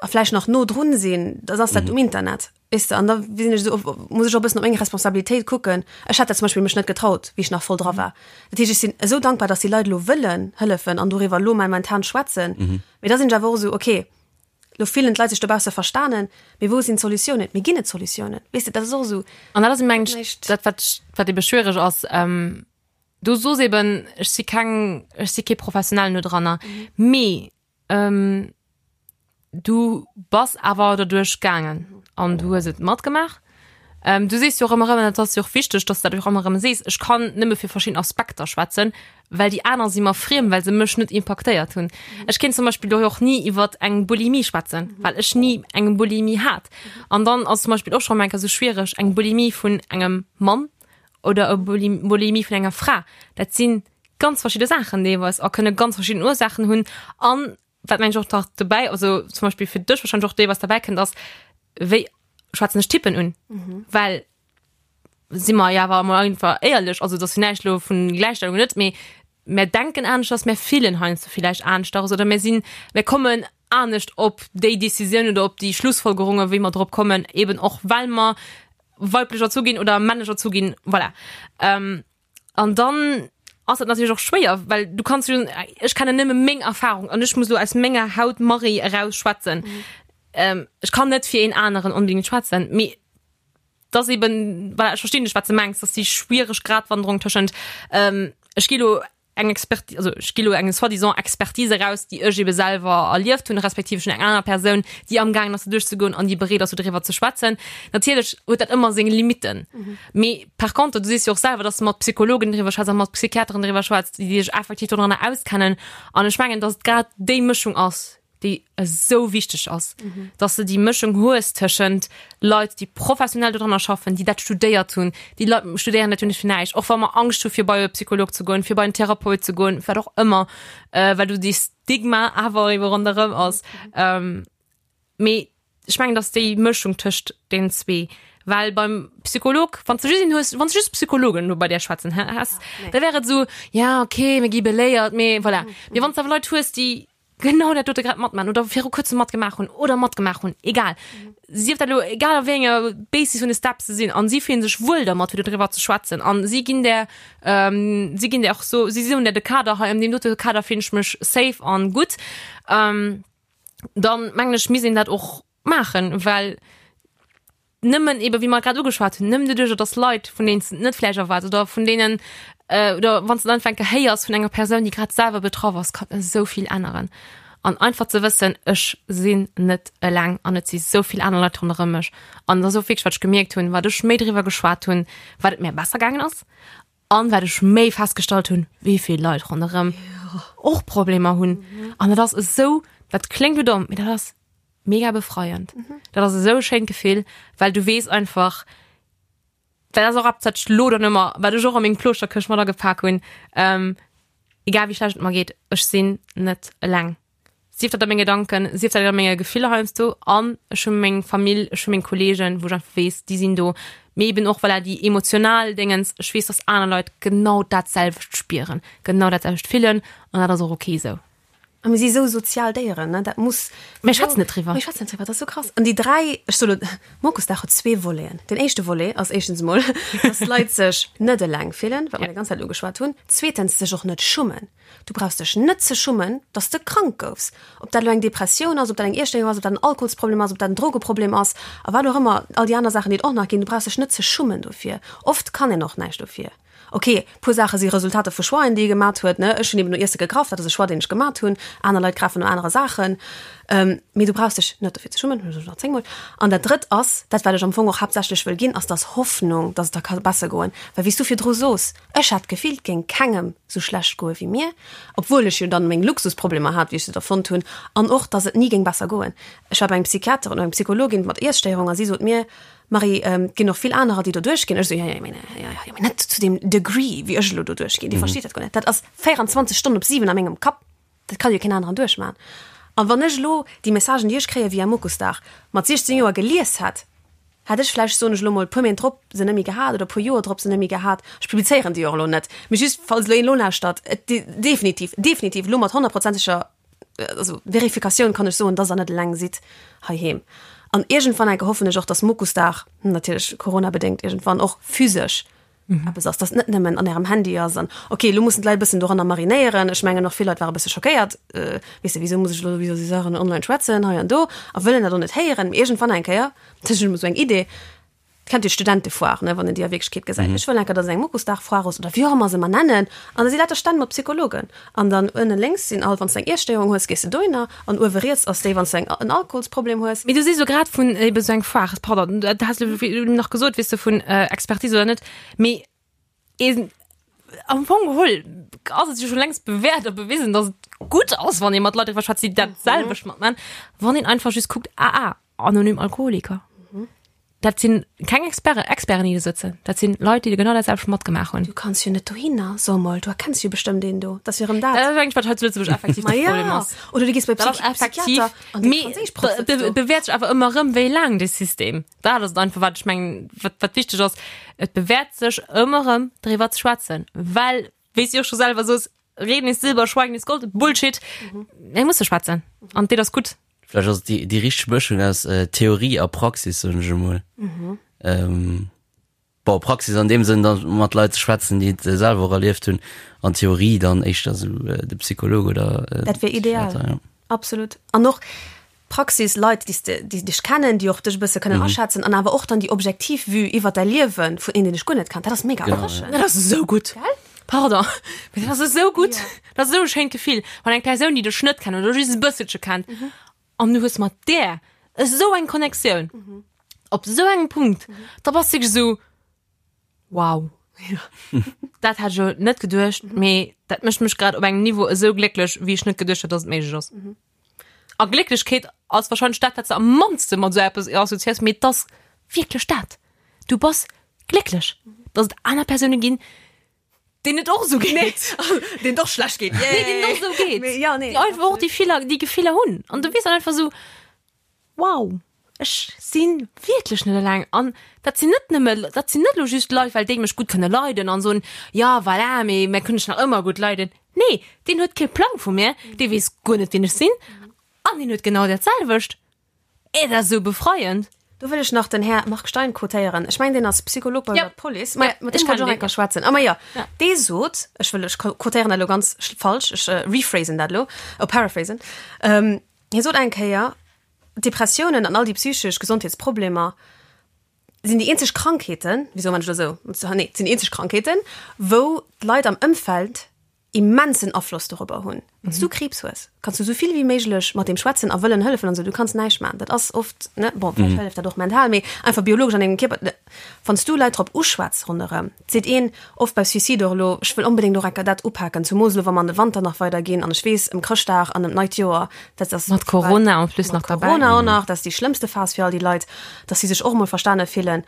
a vläicht nach no drun sinn, da ass dat um Internet, weess de. An da sinn ech esou, muss ech och e bëssen op meng Responsabilitéit kucken. Ech hätt dat zum Beispill mech net getraut, wéi ech nach voll dra war. Dat heescht, ech sinn esou dankbar, datt déi Leit elo wëllen hëllefen an doriwwer elo momentan schwätzen. Mee da sinn ech awer och esou, okay, elo fillen d'Leit sech dobausse verstanen, mee wou sinn d'Solutiounen? Mee ginn et Solutiounen? Weess de, dat ass och esou. An dat ass, mengen ech, dat, wat, wat ebe schwiereg ass. Du soos eben, ech si keng, ech si kee Professionellen do dranner, mee Du bass awer derduerch gaangen an du hues et matgemaach. Ähm, du sees jo och ëmmer erëm, an dat ass jo och wichteg, dass du dat och ëmmer erëm sees, ech kann nëmme fir verschidden Aspekter schwätzen, well déi aner si mer friem, well se mech net impaktéiert hunn. Ech kéint zum Beispill do och ni iwwer eng Bulimie schwätzen, well ech ni eng Bulimie hat. An dann ass zum Beispill och schonn eng Kéier esou schwiereg, eng Bulimie vun engem Mann oder e Bulimie vun enger Fra, dat sinn ganz verschidde Saachen deelweis a kënne ganz verschidden Ursaachen hunn. An wat mengen ech och nach dobäi, also zum Beispill fir dech wahrscheinlech och deelweis derbäi kënnt, ass wéi schwätzen ech Typen un? Mhm. Well si mer jo awer emol einfach éierlech, also dat ass jo näischt elo vun Gläichstellung net, mee mär denken aneschters, mär fillen heiansdo villäicht aneschters oder mär sinn, mär kommen anescht op déi Decisioun oder op déi Schlussfolgerungen, wéi mer drop kommen, eben och well mer weiblech erzu ginn oder männlech erzu ginn, voilà. Ähm, An dann ass dat natierlech och schwéier, well du kanns jo, ech kennen nëmme meng Erfahrung an ech muss lo aus menger Haut Marie eraus schwätzen. Mhm. Ähm, ech kann net fir een aneren onbedingt schwätzen, mee das eben, voilà, ech verstinn dech, wat du mengs, dass déi schwiereg Gratwanderung tëschent ähm, ech gi lo eng Expertise, also ech gi lo eng soi-disant Expertise eraus, déi ech ebe selwer erlieft hunn, respektiv ech hunn eng aner Persoun, déi amgaangen ass do duerchzegoen an déi bereet ass do driwwer ze schwätzen. Natierlech huet dat ëmmer seng Limitten. Mee par contre, du sees jo och selwer, dass de mat Psychologen driwwer schwätz a mat Psychiateren driwwer schwätz, déi sech effektiv dodranner auskennen. An ech mengen, dass et grad déi Mëschung ass, déi esou wichteg ass, dass de déi Mëschung hues tëschent Leit, déi professionell dodranner schaffen, déi dat studéiert hunn. Déi Leit studéieren dat jo net fir näischt, och wa mer Angscht hu fir bei e Psycholog ze goen, fir bei en Therapeut ze goen, wat och ëmmer, well do dee Stigma awer ebe ronderëm ass. Mee ech mengen, dass déi Mëschung tëscht deenen zwee, well beim Psycholog, wann s de just een hues, wann s de just Psychologen elo bei där schwätzen häss, da wär et esou, ja okay, mir gi beléiert, mee voilà. Mee wann s de awer Leit hues, déi genau dat dote grad matmachen oder viru kuerzem matgemaach hunn oder matgemaach hunn, egal, sief dat elo egal a wéi enger Basis vun de Steps se sinn an si fillen sech wuel dermat fir dodriwwer ze schwätzen an si ginn där, si ginn där och so, si soen der de Kader, hei an deem dote Kader fillen ech mech safe an gutt, dann mengen ech misst een dat och maachen, well nëmmen eben, wéi mer grad ugeschwat hunn, nëmmen doduercher, dass Leit, vun deenen s de et net vläicht erwaarts oder vun deenen, oder wann s de et einfach eng Kéier héiers vun enger Persoun, déi grad selwer betraff ass, kann esou vill änneren. An einfach ze wëssen, ech sinn net eleng an et si sou vill aner Leit ronderëm mech. An et ass och wierklech, wat ech gemierkt hunn, wat ech méi driwwer geschwat hunn, wat et mir besser gaangen ass an wat ech méi festgestallt hunn, wéi vill Leit ronderëm och Problemer hunn. An dat ass esou, dat kléngt elo domm, mee dat ass. mega befreiend. Dat ass esou e schéint Gefill, well du weess einfach, dat ass och eppes, wat ech lo dann ëmmer, wat ech och a meng Plooschter-Këscht mat agepak hunn, ähm, egal wéi schlecht et mer geet, ech sinn net eleng. Sief dat a menge Gedanken, sief dat a menge Gefiller heiansdo an ech hu meng Famill, ech hu meng Kolleegen, wou ech einfach weess, déi sinn do. Mee eben och voilà déi emotional Déngens, ech weess, dass aner Leit genau dat selwecht spieren, genau dat selwecht fillen an dat ass och ok esou. A mir si sou sozial Déieren, ne, dat muss. Mir schwätzen net driwwer. Mir schwätzen net driwwer, dat ass sou krass. An déi 3, ech soe lo, Mokusdag huet zwee Voleten. Den éischte Volet ass éischtens emol, dass d'Leit sech net eleng fillen, wat mer déi ganz Zäit ugeschwat hunn. Zweetens, sech och net schummen. Du brauchs dech net ze schummen, dass de krank goufs. Ob dat elo eng Depressioun ass, ob dat eng Iesstéierung ass, ob dat en Alkoholsproblem ass, ob dat en Drogeproblem ass a wat och ëmmer, all déi aner Saachen, déi et och nach ginn, du brauchs dech net ze schummen dofir. Oft kann een och näischt dofir. Ok, puer Saache si Resultater vu Choixen, déi ee gemat huet, ne. Ech hunn eben no Iesse gegraff, dat ass e Choix, deen ech gemat hunn. Aner Leit grafen no anere Saachen. Mee du brauchs dech net dofir ze schummen, hunn ech nach zéngmol. An dat Drëtt ass, dat wat ech am Fong och haaptsächlech wëll ginn, ass dass Hoffnung, dass et der ka besser goen. Well wéi s du virdru sos, Ech hat d'Gefill, et géing kengem sou schlecht goe wéi mir, obwuel ech jo dann meng Luxusproblemer hat, wéi ech se da fonnt hunn, an och, dass et ni géing besser goen. Ech war bei engem Psychiater oder engem Psychologin mat Iesstéierung a si sot mir, Marie, et ginn och vill anerer, déi do duerchginn. Ech esou, jo, jo, mee, jo, jo, mee net zu deem Degree, wéi ech elo do duerchginn. Dir versteet dat guer net. Dat ass 24 Stonnen op 7 a mengem Kapp. Dat kann jo keen aneren duerchmachen. An wann ech elo déi Messagen, déi ech kréie via Mokusdag, mat 16 Joer gelies hätt, hätt ech vläicht, soen ech elo mol, e puer Méint drop se net méi gehat oder e puer Joer drop se net méi gehat. Ech publizéieren déi och elo net, mee just falls elo een elo lauschtert, et definitiv, definitiv elo mat honnertprozenteger also Verifikatioun kann ech soen, dass der net eleng sidd heiheem. An iergendwann enke hoffen ech och, dass Mokusdag, natierlech coronabedéngt iergendwann och physesch eppes ass, dass net nëmmen an ärem Handy ass an okay, elo mussen d'Leit e bëssen doranner marinéieren. Ech mengen och vill Leit ware e bësse schockéiert, weess de, wisou muss ech elo iwwer esou Saachen online schwätzen hei an do a wëllen dat och net héieren. Mee iergendwann eng Kéier, dat ass elo esou eng Idee, kennt Dir d'Studentefoire, ne, wann een déi a Wierklechkeet gesäit. Ech wëll eng Kéier, dass et eng Mokusdag-Foire ass oder wéi och ëmmer se mer nennen an da si lauter Stänn mat Psychologen an dann ënne lénks sinn all, wann s de eng Iesstéierung hues, gees de dohinner an uewe riets ass déi, wann s de eng en Alkoholsproblem hues. Mee du sees elo grad vun ebe sou eng Foire, pardon, dat has de nach gesot, weess de, vun Expertise oder net, mee een am Fong geholl ass et jo scho längst bewäert a bewisen, dass et gutt ass, wann ee mat Leit driwwer schwätzt, déi dat selwecht matman, wann een einfach just kuckt, AA, Anonym Alkoholiker. Dat sinn keng Experte, Experten, déi do sëtzen. Dat sinn Leit, déi genau dat selwecht matgemaach hunn. Du kanns jo net dohinner, so mol, du erkenns jo bestëmmt een do. Dat ass jo erëm dat. Dat ass eigentlech, wat hei zu Lëtzebuerg effektiv de ja. Problem ass. Oder du gees bei Dat ass effektiv, mee et bewäert sech awer ëmmer erëm, wéi laang dee System. Dat ass et einfach, wat ech mengen, wat, wat wichteg ass. Et bewäert sech ëmmer erëm, driwwer ze schwätzen, well, wéi s de och scho selwer sos, Reden ist Silber, Schweigen ist Gold, Bullshit. Mir musse schwätzen an dat ass gutt. Vläicht ass et déi, déi richteg Mëschung aus äh, Theorie a Praxis, soen ech emol. Mhm. Ähm, bon, Praxis an dem Sënn, dann mat Leit ze schwätzen, déi et äh, selwer och erlieft hunn, an Theorie dann éischter sou äh, de Psycholog oder äh, Dat wär ideal. Psychiater, ja. Absolut. An och Praxis, Leit, déi s de, déi dech kennen, déi och dech e bësse kënnen mhm. aschätzen an awer och dann déi objektiv Vue iwwer däi Liewe vun een, deen dech guer net kennt. Dat ass mega genau, erfrischend. Ja. Dat ass esou gutt. Gell? Pardon, mee dat ass esou gutt. Ja. Dat ass esou e schéint Gefill, wann eng Persoun, déi dech net kennt oder just e bësselche kennt, mhm. an du hues mat där esou eng Connectioun mhm. op esou engem Punkt, mhm. da bass du esou Wow. Ja. Dat hat ech jo net geduecht, mhm. mee dat mécht mech grad op engem Niveau esou glécklech, wéi ech net geduecht hat, dass et méiglech ass. Mhm. A Glécklechkeet ass wahrscheinlech dat, wat s de am mannste mat esou eppes assoziéiers, mee et ass wierklech dat. Du bass glécklech, dass et aner Persoune ginn, deenen et och esou geet. Deenen et och schlecht geet. Nee, deenen et och esou geet. Mee ja, nee. Déi einfach och déi Filler, déi Gefiller hunn. An du weess dann einfach esou, Wow, ech si wierklech net eleng. An dat sinn net nëmme, dat sinn net elo just Leit, well déi mech gutt kënne leiden an soen, jo voilà, mee mär kënnen dech nach ëmmer gutt leiden. Nee, deen huet kee Plang vu mir, dee weess guer net, wien ech sinn an deen huet genau dat selwecht. Et ass esou befreiend. Do wëll ech nach den Här Marc Stein quotéieren. Ech mengen, deen ass Psycholog bei der Police. Ma mat deem wollt ech och eng Kéier schwätzen. A ma jo, dee sot, ech wëll, ech quotéieren dat elo ganz falsch, ech rephrasen dat elo, oh paraphrasen, hie sot eng Kéier, Depressiounen an all déi psychesch Gesondheetsproblemer sinn déi eenzeg Krankheeten, wisou man ech elo esou, nee, sinn déi eenzeg Krankheeten, wou d'Leit am Ëmfeld. immensen Afloss dorobber hunn. Wann s du Kriibs hues, kanns du esou vill wéi méiglech mat deem schwätzen a wëllen hëllefen an esou, du kanns näischt maachen. Dat ass oft, ne, bon, vläicht hëlleft dat och mental, mee einfach biologesch an dengem Kierper. Wann s du Leit drop uschwätz ronderëm, et seet een oft bei Suicide och elo, ech wëll onbedéngt och enker dat upaken, zumoos elo wa mer an de Wanter nach weider ginn an ech weess ëm Chrëschtdag an ëm d'neit Joer, dat ass Mat Corona en plus nach mat derbäi. Corona och nach, dat ass déi schlëmmste Phas fir all déi Leit, dass si sech och emol verstane fillen.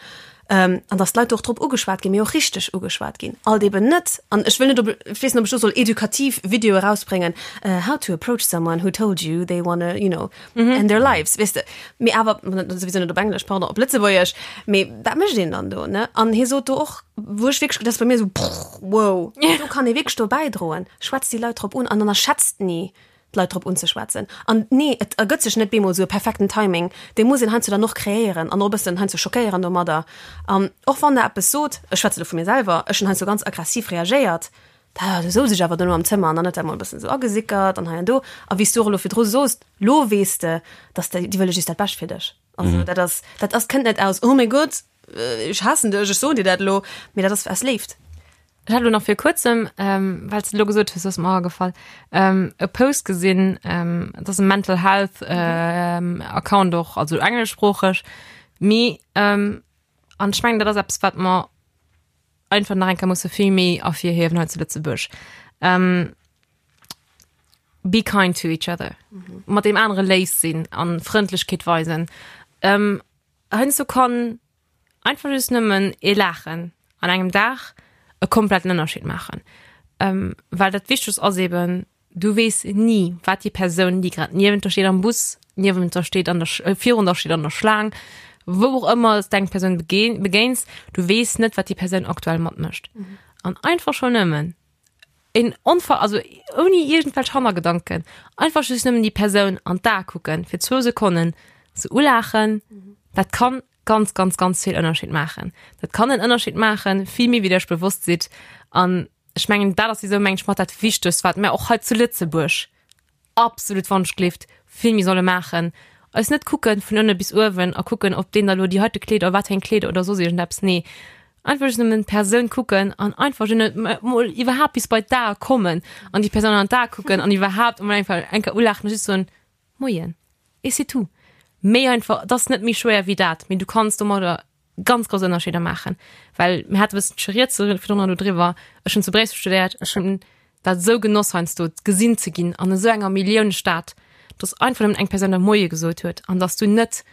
An dass d'Leit och drop ugeschwat ginn, mee och richteg ugeschwat ginn. Alt eben net, an ech wëll net op, ech weess net, ob ech do soll edukativ Videoe erausbréngen, how to approach someone who told you they wanna, you know, end their lives, weess de. Mee awer, souwisou net op Englesch, pardon, op Lëtzebuergesch. Mee wat mécht een dann do, ne? An hie sot do och, wou ech wierklech, dat ass bei mir esou, wow, do kann ee wierklech do bäidroen. Schwätzt déi Leit drop un an ënnerschätzt ni, d'Leit drop unzeschwätzen. An nee, et ergëtt sech net bemol esou e perfekten Timing, dee muss een heiansdo dann och kreéieren an och e bëssen heiansdo schockéieren domadder. An och wann Der eppes sot, ech schwätze lo vu mir selwer, ech hunn heiansdo ganz aggressiv reagéiert, da du souz ech awer dono am Zëmmer an dann huet dat mol e bëssen esou agesickert an hei an do. A wéi s du och elo virdru soos, lo weess de, dass déi, déi wëlle just dat Bescht fir dech. Also dat ass, dat ass, kënnt net aus, oh mäi Gott, ech haassen dech, ech soen dir dat elo, mee dat ass aus Léift. Ech hat elo nach vir kuerzem, ähm, well s de elo gesot hues, ass mer agefall, ähm, e Post gesinn, ähm, et ass e Mental Health ähm, Account och, also engleschsproocheg, mee ähm, an ech mengen, dat ass eppes, wat mer einfach nach eng Kéier musse vill méi ervirhiewen hei zu Lëtzebuerg. Ähm, be kind to each other. Mat deem anere léif sinn an Frëndlechkeet weisen. Ähm, heiansdo kann Einfach just nëmmen ee Laachen an engem Dag e kompletten Ënnerscheed maachen. Well dat Wichtegst ass eben, du weess ni, wat déi Persoun, déi grad niewent der steet am Bus, niewent der steet an der, virun der steet an der Schlaang, wou och ëmmer s de eng Persoun begéins, du weess net, wat déi Persoun aktuell matmécht. An einfach schonn nëmmen een onver, also ouni iergendwelch Hannergedanken, einfach just nëmmen déi Persoun an d'Ae kucken fir zwou Sekonnen, se ulaachen, dat kann ganz, ganz, ganz vill Ënnerscheed maachen. Dat kann en Ënnerscheed maachen, vill méi wéi der iech bewosst sidd. An ech mengen, dat ass esou, meng ech, mat dat Wichtegst, wat mir och hei zu Lëtzebuerg absolut wannschgelift vill méi solle maachen. Eis net kucken vun ënne bis uewen a kucken, ob deen da lo déi heite Kleeder oder wat fir eng Kleeder oder soss iergendeppes. Nee, einfach just nëmmen d'Persoun kucken an einfach just mol iwwerhaapt bis bei d'Ae kommen an déi Persoun an d'Ae kucken an iwwerhaapt emol einfach eng Kéier ulaachen a just soen, Moien. Et c'est tout. Méi einfach, et ass net méi schwéier wéi dat, mee du kanns domadder ganz grouss Ënnerscheeder maachen. Well mir hate bëssen rieds virdrun do driwwer, ech hunn zu Bréissel studéiert, ech hunn dat esou genoss heiansdo gesinn ze ginn an esou enger Milliounestad, dass einfach nëmmen eng Persoun der Moie gesot huet an dass du net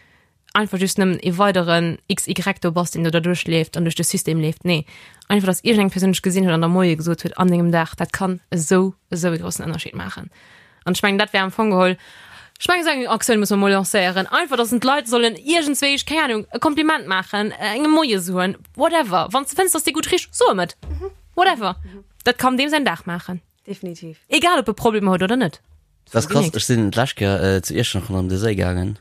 einfach just nëmmen e weideren XY do bass, deen do derduerch leeft an duerch de System leeft. Nee, einfach, dass iergendeng Persoun dech gesinn huet an der Moie gesot huet an dengem Dag, dat kann esou, esou e groussen Ënnerscheed maachen. An ech mengen, dat wär am Fong geholl, ech mengen, esou eng Aktioun muss mer mol lancéieren, einfach, dass d'Leit sollen iergendswéi, keng Ahnung, e Kompliment maachen, engem Moie soen, whatever. Wann s de fënns, dass dee gutt richt, so em et. Whatever. Dat kann deem säin Dag maachen. Definitiv. Egal, ob e Problemer huet oder net. Dat ass krass, ech sinn d'lescht Kéier zu Iechternach ronderëm de Séi gaangen,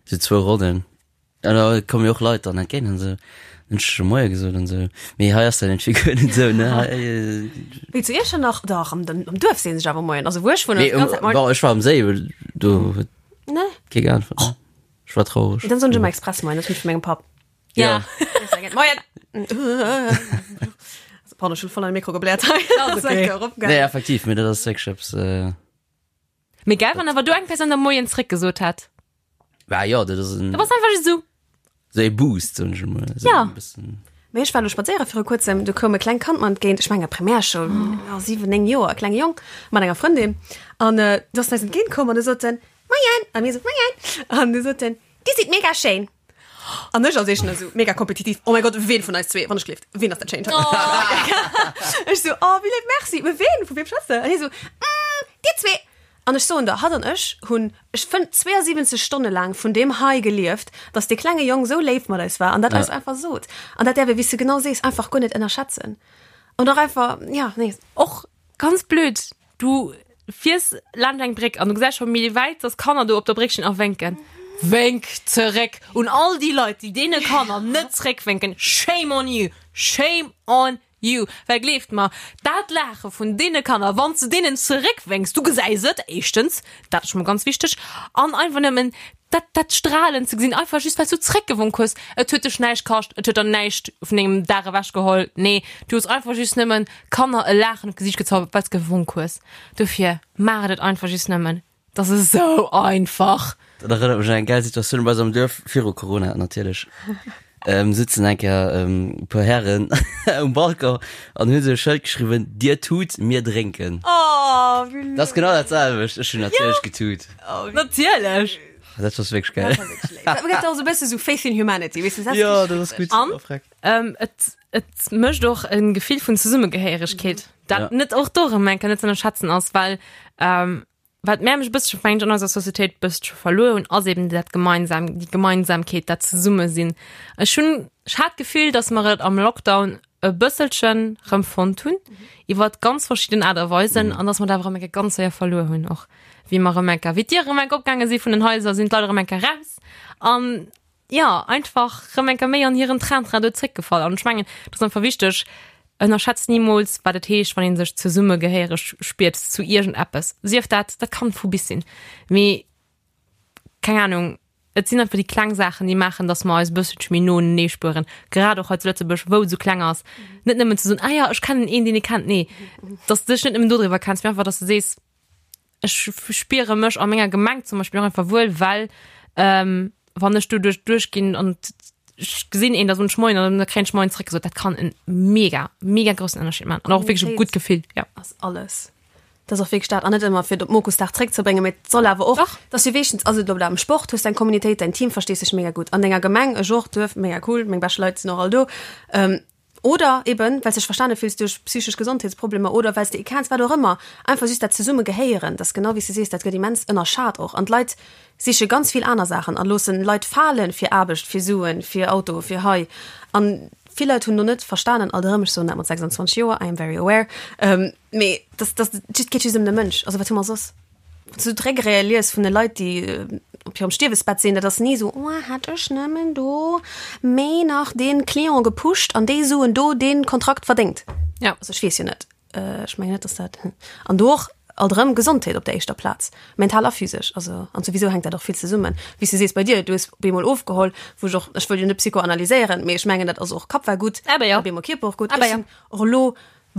sou zwou Ronnen. An da komme jo och Leit dann entgéint an esou. Dann hunn ech scho Moie gesot an esou. Mee hei ass dat iergendwéi guer net esou, ne? Hei, Wéi zu Iechternach? Dach, am, am Duerf seen sech awer Moien. Also wou ech wunnen, nee, ass d'ganz Zäit Moien. bon, ech war am Séi, well do huet Ne? kee geäntwert, ne? Ech war traureg. Dann soen ech ëmmer express Moien, dat hunn ech vu mengem Papp. Ja. Moien! Also, pardon, ech hunn voll an de Mikro gebläert hei. Ass okay. Nee, effektiv, mee dat ass wierklech eppes, Mee geil, wann awer do eng Persoun der Moien zréckgesot hätt. Bah jo, dat ass en. Dat ass einfach just esou. Sou ee Boost, soen ech emol. Sou Ja. e bëssen. Mee ech war elo spadséiere viru kuerzem, du koum e klengt Kand mer entgéint, ech menge Primärschoul, jo, 7, 9 Joer, e klenge Jong mat enger Frëndin. An du ass en eis entgéint komm an du sot en, Moien! A mir esou, Moien! An du sot en, Dir sidd mega schéin! An ech als éischten esou mega kompetitiv, Oh mäi Gott, ween vun eis zwee, wann ech gleeft, ween ass dat Schéint? Ech esou, Oh, wéi léif, merci, mee ween, vu weem schwätz de? An hie esou, Mm, dir zwee! An ech soen der, hatt an ech hunn, ech fënn, 72 Stonne laang vun deem High gelieft, dass dee klenge Jong esou léif mat eis war an dat eis einfach sot. An dat däerf ee, wéi s de genau sees, einfach guer net ënnerschätzen. An och einfach, ja, nee. Och ganz blöd, du fiers laanscht eng Bréck an du gesäis scho méi wäit, dass Kanner do op der Bréck stinn a wénken. Wénk zeréck! Un all déi Leit, déi deene Kanner net zeréckwénken, shame on you! Shame on You, well gleeft mer, dat Laache vun deene Kanner, wann s de deenen zeréckwénks, du gesäis et, éischtens, dat ass scho mol ganz wichteg, an einfach nëmmen. Dat, dat Strahlen ze gesinn, einfach just well s du zréckgewonk hues. Et huet dech näischt kascht, et huet der näischt vun dengem Dag ewechgeholl. Nee, du hues einfach just nëmmen Kanner e Laachen op d'Gesiicht gezaubert, well s gewonk hues. Dofir, maacht et einfach just nëmmen. Dat ass esou einfach. Dat erënnert mech un eng gäil Situatioun bei eis am Duerf, viru Corona natierlech. Ähm, sitzen eng Kéier ähm, e puer Hären um Balcon an hunn esou e Schëld geschriwwen, Dir tut, mir drénken. Oh, wéi Dat ass genau dat selwecht. Ech hunn natierlech getut. Natierlech. Dat ass wierklech geil. Dat gëtt och esou e bësse sou Faith in Humanity, weess de, dat ass Ja, dat ass gutt. An? Oh, freck. Ähm, et, et mécht och e Gefill vun Zesummegehéieregkeet, dat Ja. net och do erëm eng Kéier net ze ënnerschätzen ass, well ähm, Wat mär mech e bëssche mengt an eiser Societéit bëssche verluer hunn, ass eben dat gemeinsam, déi Gemeinsamkeet, dat Zesummesinn. Ech hunn, ech hat d'Gefill, datt mer et am Lockdown e bësselchen rëm fonnt hunn, iwwer ganz verschidden Aart a Weisen, an datt mer et awer erëm eng Kéier ganz séier verluer hunn och, wéi mer erëm eng Kéier, wéi d'Diere erëm eng Kéier opgaange si vun den Haiser, sinn d'Leit erëm eng Kéier raus an, jo, einfach rëm eng Kéier méi an hiren Train-Train do zréckgefall. An ech mengen, et ass einfach wichteg, ënnerschätzt nimools, wat et heescht, wann ee sech zesummegehéiereg spiert zu iergendeppes. Sief dat, dat kann vu bis sinn, mee keng Anung, et sinn einfach déi kleng Saachen, déi maachen, datt mer eis e bësselche méi no unenee spueren, grad och hei zu Lëtzebuerg, wou et esou kleng ass. Net nëmmen ze soen, ah jo, ech kennen een, deen ee kennt, nee, datt s de dech net nëmmen dodriwwer kenns, mee einfach, datt s de sees, ech spiere mech a menger Gemeng zum Beispill och einfach wuel, well ähm, wann ech do duerch duerchginn an ech gesinn een, da soen ech Moien an da kréien ech Moien zréck gesot. Dat kann en mega, mega groussen Ënnerscheed maachen an och wierklech e gutt Gefill, ja. Ass alles. Dat ass och wierklech dat an net ëmmer fir et op Mokusdag zréckzebréngen, mee et soll awer och, Dach. dass du weeschtens, also elo am Sport hues deng Communautéit, däin Team verstees dech mega gutt, an denger Gemeng, ech och, Duerf, mega cool, meng bescht Leit sinn och all do, ähm, Oder eben, well s dech verstane fills duerch psychesch Gesondheetsproblemer oder well s de ee kenns, wat och ëmmer. Einfach just dat zesumme gehéieren, dat ass genau wéi s de sees, dat gëtt immens ënnerschat och. An d'Leit siche ganz vill aner Saachen a loossen Leit falen fir Aarbecht, fir Suen, fir Auto, fir hei. An vill Leit hunn do net verstanen, alt erëm, ech soen dat mat 26 Joer, I am very aware, mee dass, dass, et geet just ëm de Mënsch. Also wat hu mer soss? Wann s du d'Regrete lies vun de Leit, déi op hirem Stierwesbett sinn, dat ass ni esou, oh, hätt ech nëmmen do méi nach dee Client gepusht an déi Suen do dee Kontrakt verdéngt. Ja. Also ech weess jo net, ech mengen net, dass dat, an do och alt erëm Gesondheet op der éischter Plaz, mental a physesch. Also an souwisou hänkt dat och vill zesummen. Wéi s du sees bei dir, du hues op eemol ofgeholl, wou ech och, ech wëll jo net psychoanalyséieren, mee ech mengen, dat ass och Kapp war gutt, Awer jo. op eemol Kierper och gutt. Awer Ech jo. sinn och elo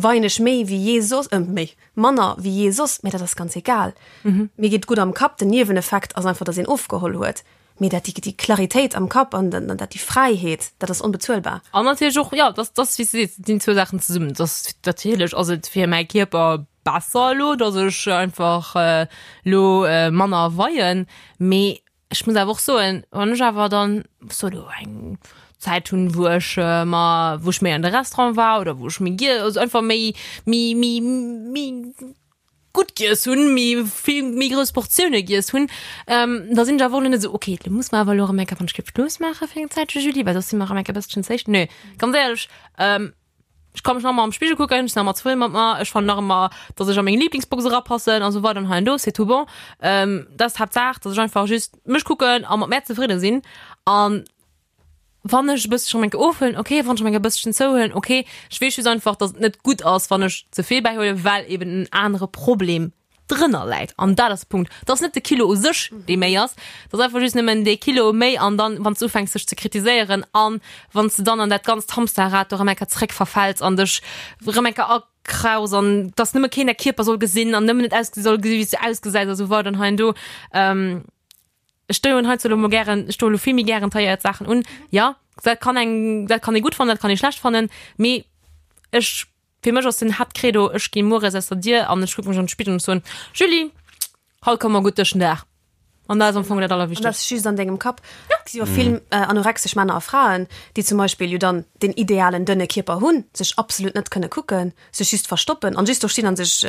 weien ech méi wéi jee soss, méi, manner wéi jee soss, mä dat ass ganz egal. Mir geet gutt am Kapp, den Nieweneffekt ass einfach, datt een ofgeholl huet, mee dat déi déi Claritéit am Kapp an dann dat déi Fräiheet, dat ass onbezuelbar. An natierlech och, jo, dass dass wéi s de sees, et sinn zwou Saachen zesummen. Et ass natierlech ass et fir mäi Kierper besser elo, datt ech einfach elo manner weien, mee Ech muss awer och soen, wann ech awer dann so do eng Zäit hunn, wou ech mer, wou ech méi an de Restaurant war oder wou ech méi giess, also einfach méi, méi, méi, méi gutt giess hunn, méi vill, méi grouss Portioune giess hunn, da sinn ech awer och elo net esou, okay, lo muss mer awer elo erëm eng Kéier wann ech géif Schluss maache fir eng Zäitche, Julie, well soss si mer erëm eng Kéier e bësschen ze héich. Nö, ganz éierlech, Ech ka mech nach ëmmer am Spigel kucken, ech sinn nach ëmmer zefridde mat mer, ech fannen nach ëmmer, dass ech a meng Lieblingsbox erapassen an esou weider an hei an do, c'est tout bon. Dat ass d'Haaptsaach, dass ech einfach just mech kucken a mat mär zefridde sinn. An wann ech e bësschen erëm eng Kéier ofhuelen, okay, wann ech erëm eng Kéier e bësschen zouhuelen, okay. Ech weess just einfach, dass et net gutt ass, wann ech ze vill bäihuelen, well eben en anere Problem drënner läit an dat ass de Punkt. Et ass net de Kilo u sech, dee méi ass, et ass einfach just nëmmen dee Kilo méi an dann, wann s du ufänks dech ze kritiséieren an wann s de dann an dat ganzt Hamsterrad do erëm eng Kéier zréck verfäls an dech erëm eng Kéier akraus an dass nëmme keen däi Kierper soll gesinn an nëmmen net ausgesi soll gesi wéi s du ausgesäis a sou weider an hei an do. Ech doen heizou elo mol gären, ech doen elo vill méi gären tailléiert Saachen un. Jo, dat kann eng, dat kann ee gutt fannen, dat kann ee schlecht fannen, mee ech Fir mech ass den Haaptcredo, ech gi mueres aus der Dier an ech kucke mech an de Spigel an ech soen, Julie, haut komme mer gutt duerch den Dag. An dat ass am Fong dat An dat Allerwichtegst. ass just an dengem Kapp. Et si jo vill anorexesch Männer a Fraen, déi zum Beispill jo dann den idealen dënne Kierper hunn, sech absolut net kënne kucken, sech just verstoppen an just do stinn an sech,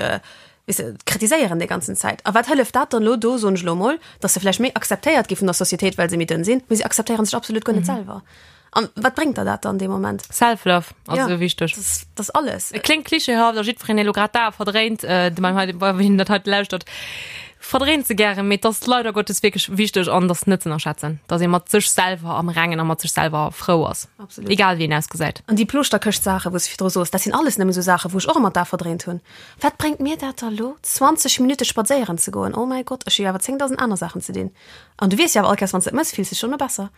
weess de, kritiséieren déi ganzen Zäit. A wat hëlleft dat dann elo do, soen ech elo emol, dass se vläicht méi akzeptéiert gi vun der Societéit, well se méi dënn sinn, mee se akzeptéieren sech absolut guer net selwer. An wat bréngt der dat dann dee Moment? Self-Love ass Ja, esou wichteg. Dat ass, dat ass alles. Et kléngt klischeehaft a jiddwereen, dee elo grad d'Ae verdréint, äh, de beim hei, wien dat hei lauschtert. Verdréint se gären, mee et ass leider Gottes wierklech wichteg an et ass net ze ënnerschätzen, dass ee mat sech selwer am Rengen a mat sech selwer frou ass, Absolut. egal wéi een ausgesäit. An déi Ploschterkëscht-Saachen, wou s de virdru soos, dat sinn alles nëmme sou Saachen, wou ech och ëmmer d'A verdréint hunn. Wat bréngt mir dat da lo, 20 Minutte spadséieren ze goen? Oh mäi Gott, ech hu jo awer 10.000 aner Saachen ze dinn. An du weess jo awer all Kéiers, wann s de et mëss, fills de dech dono besser.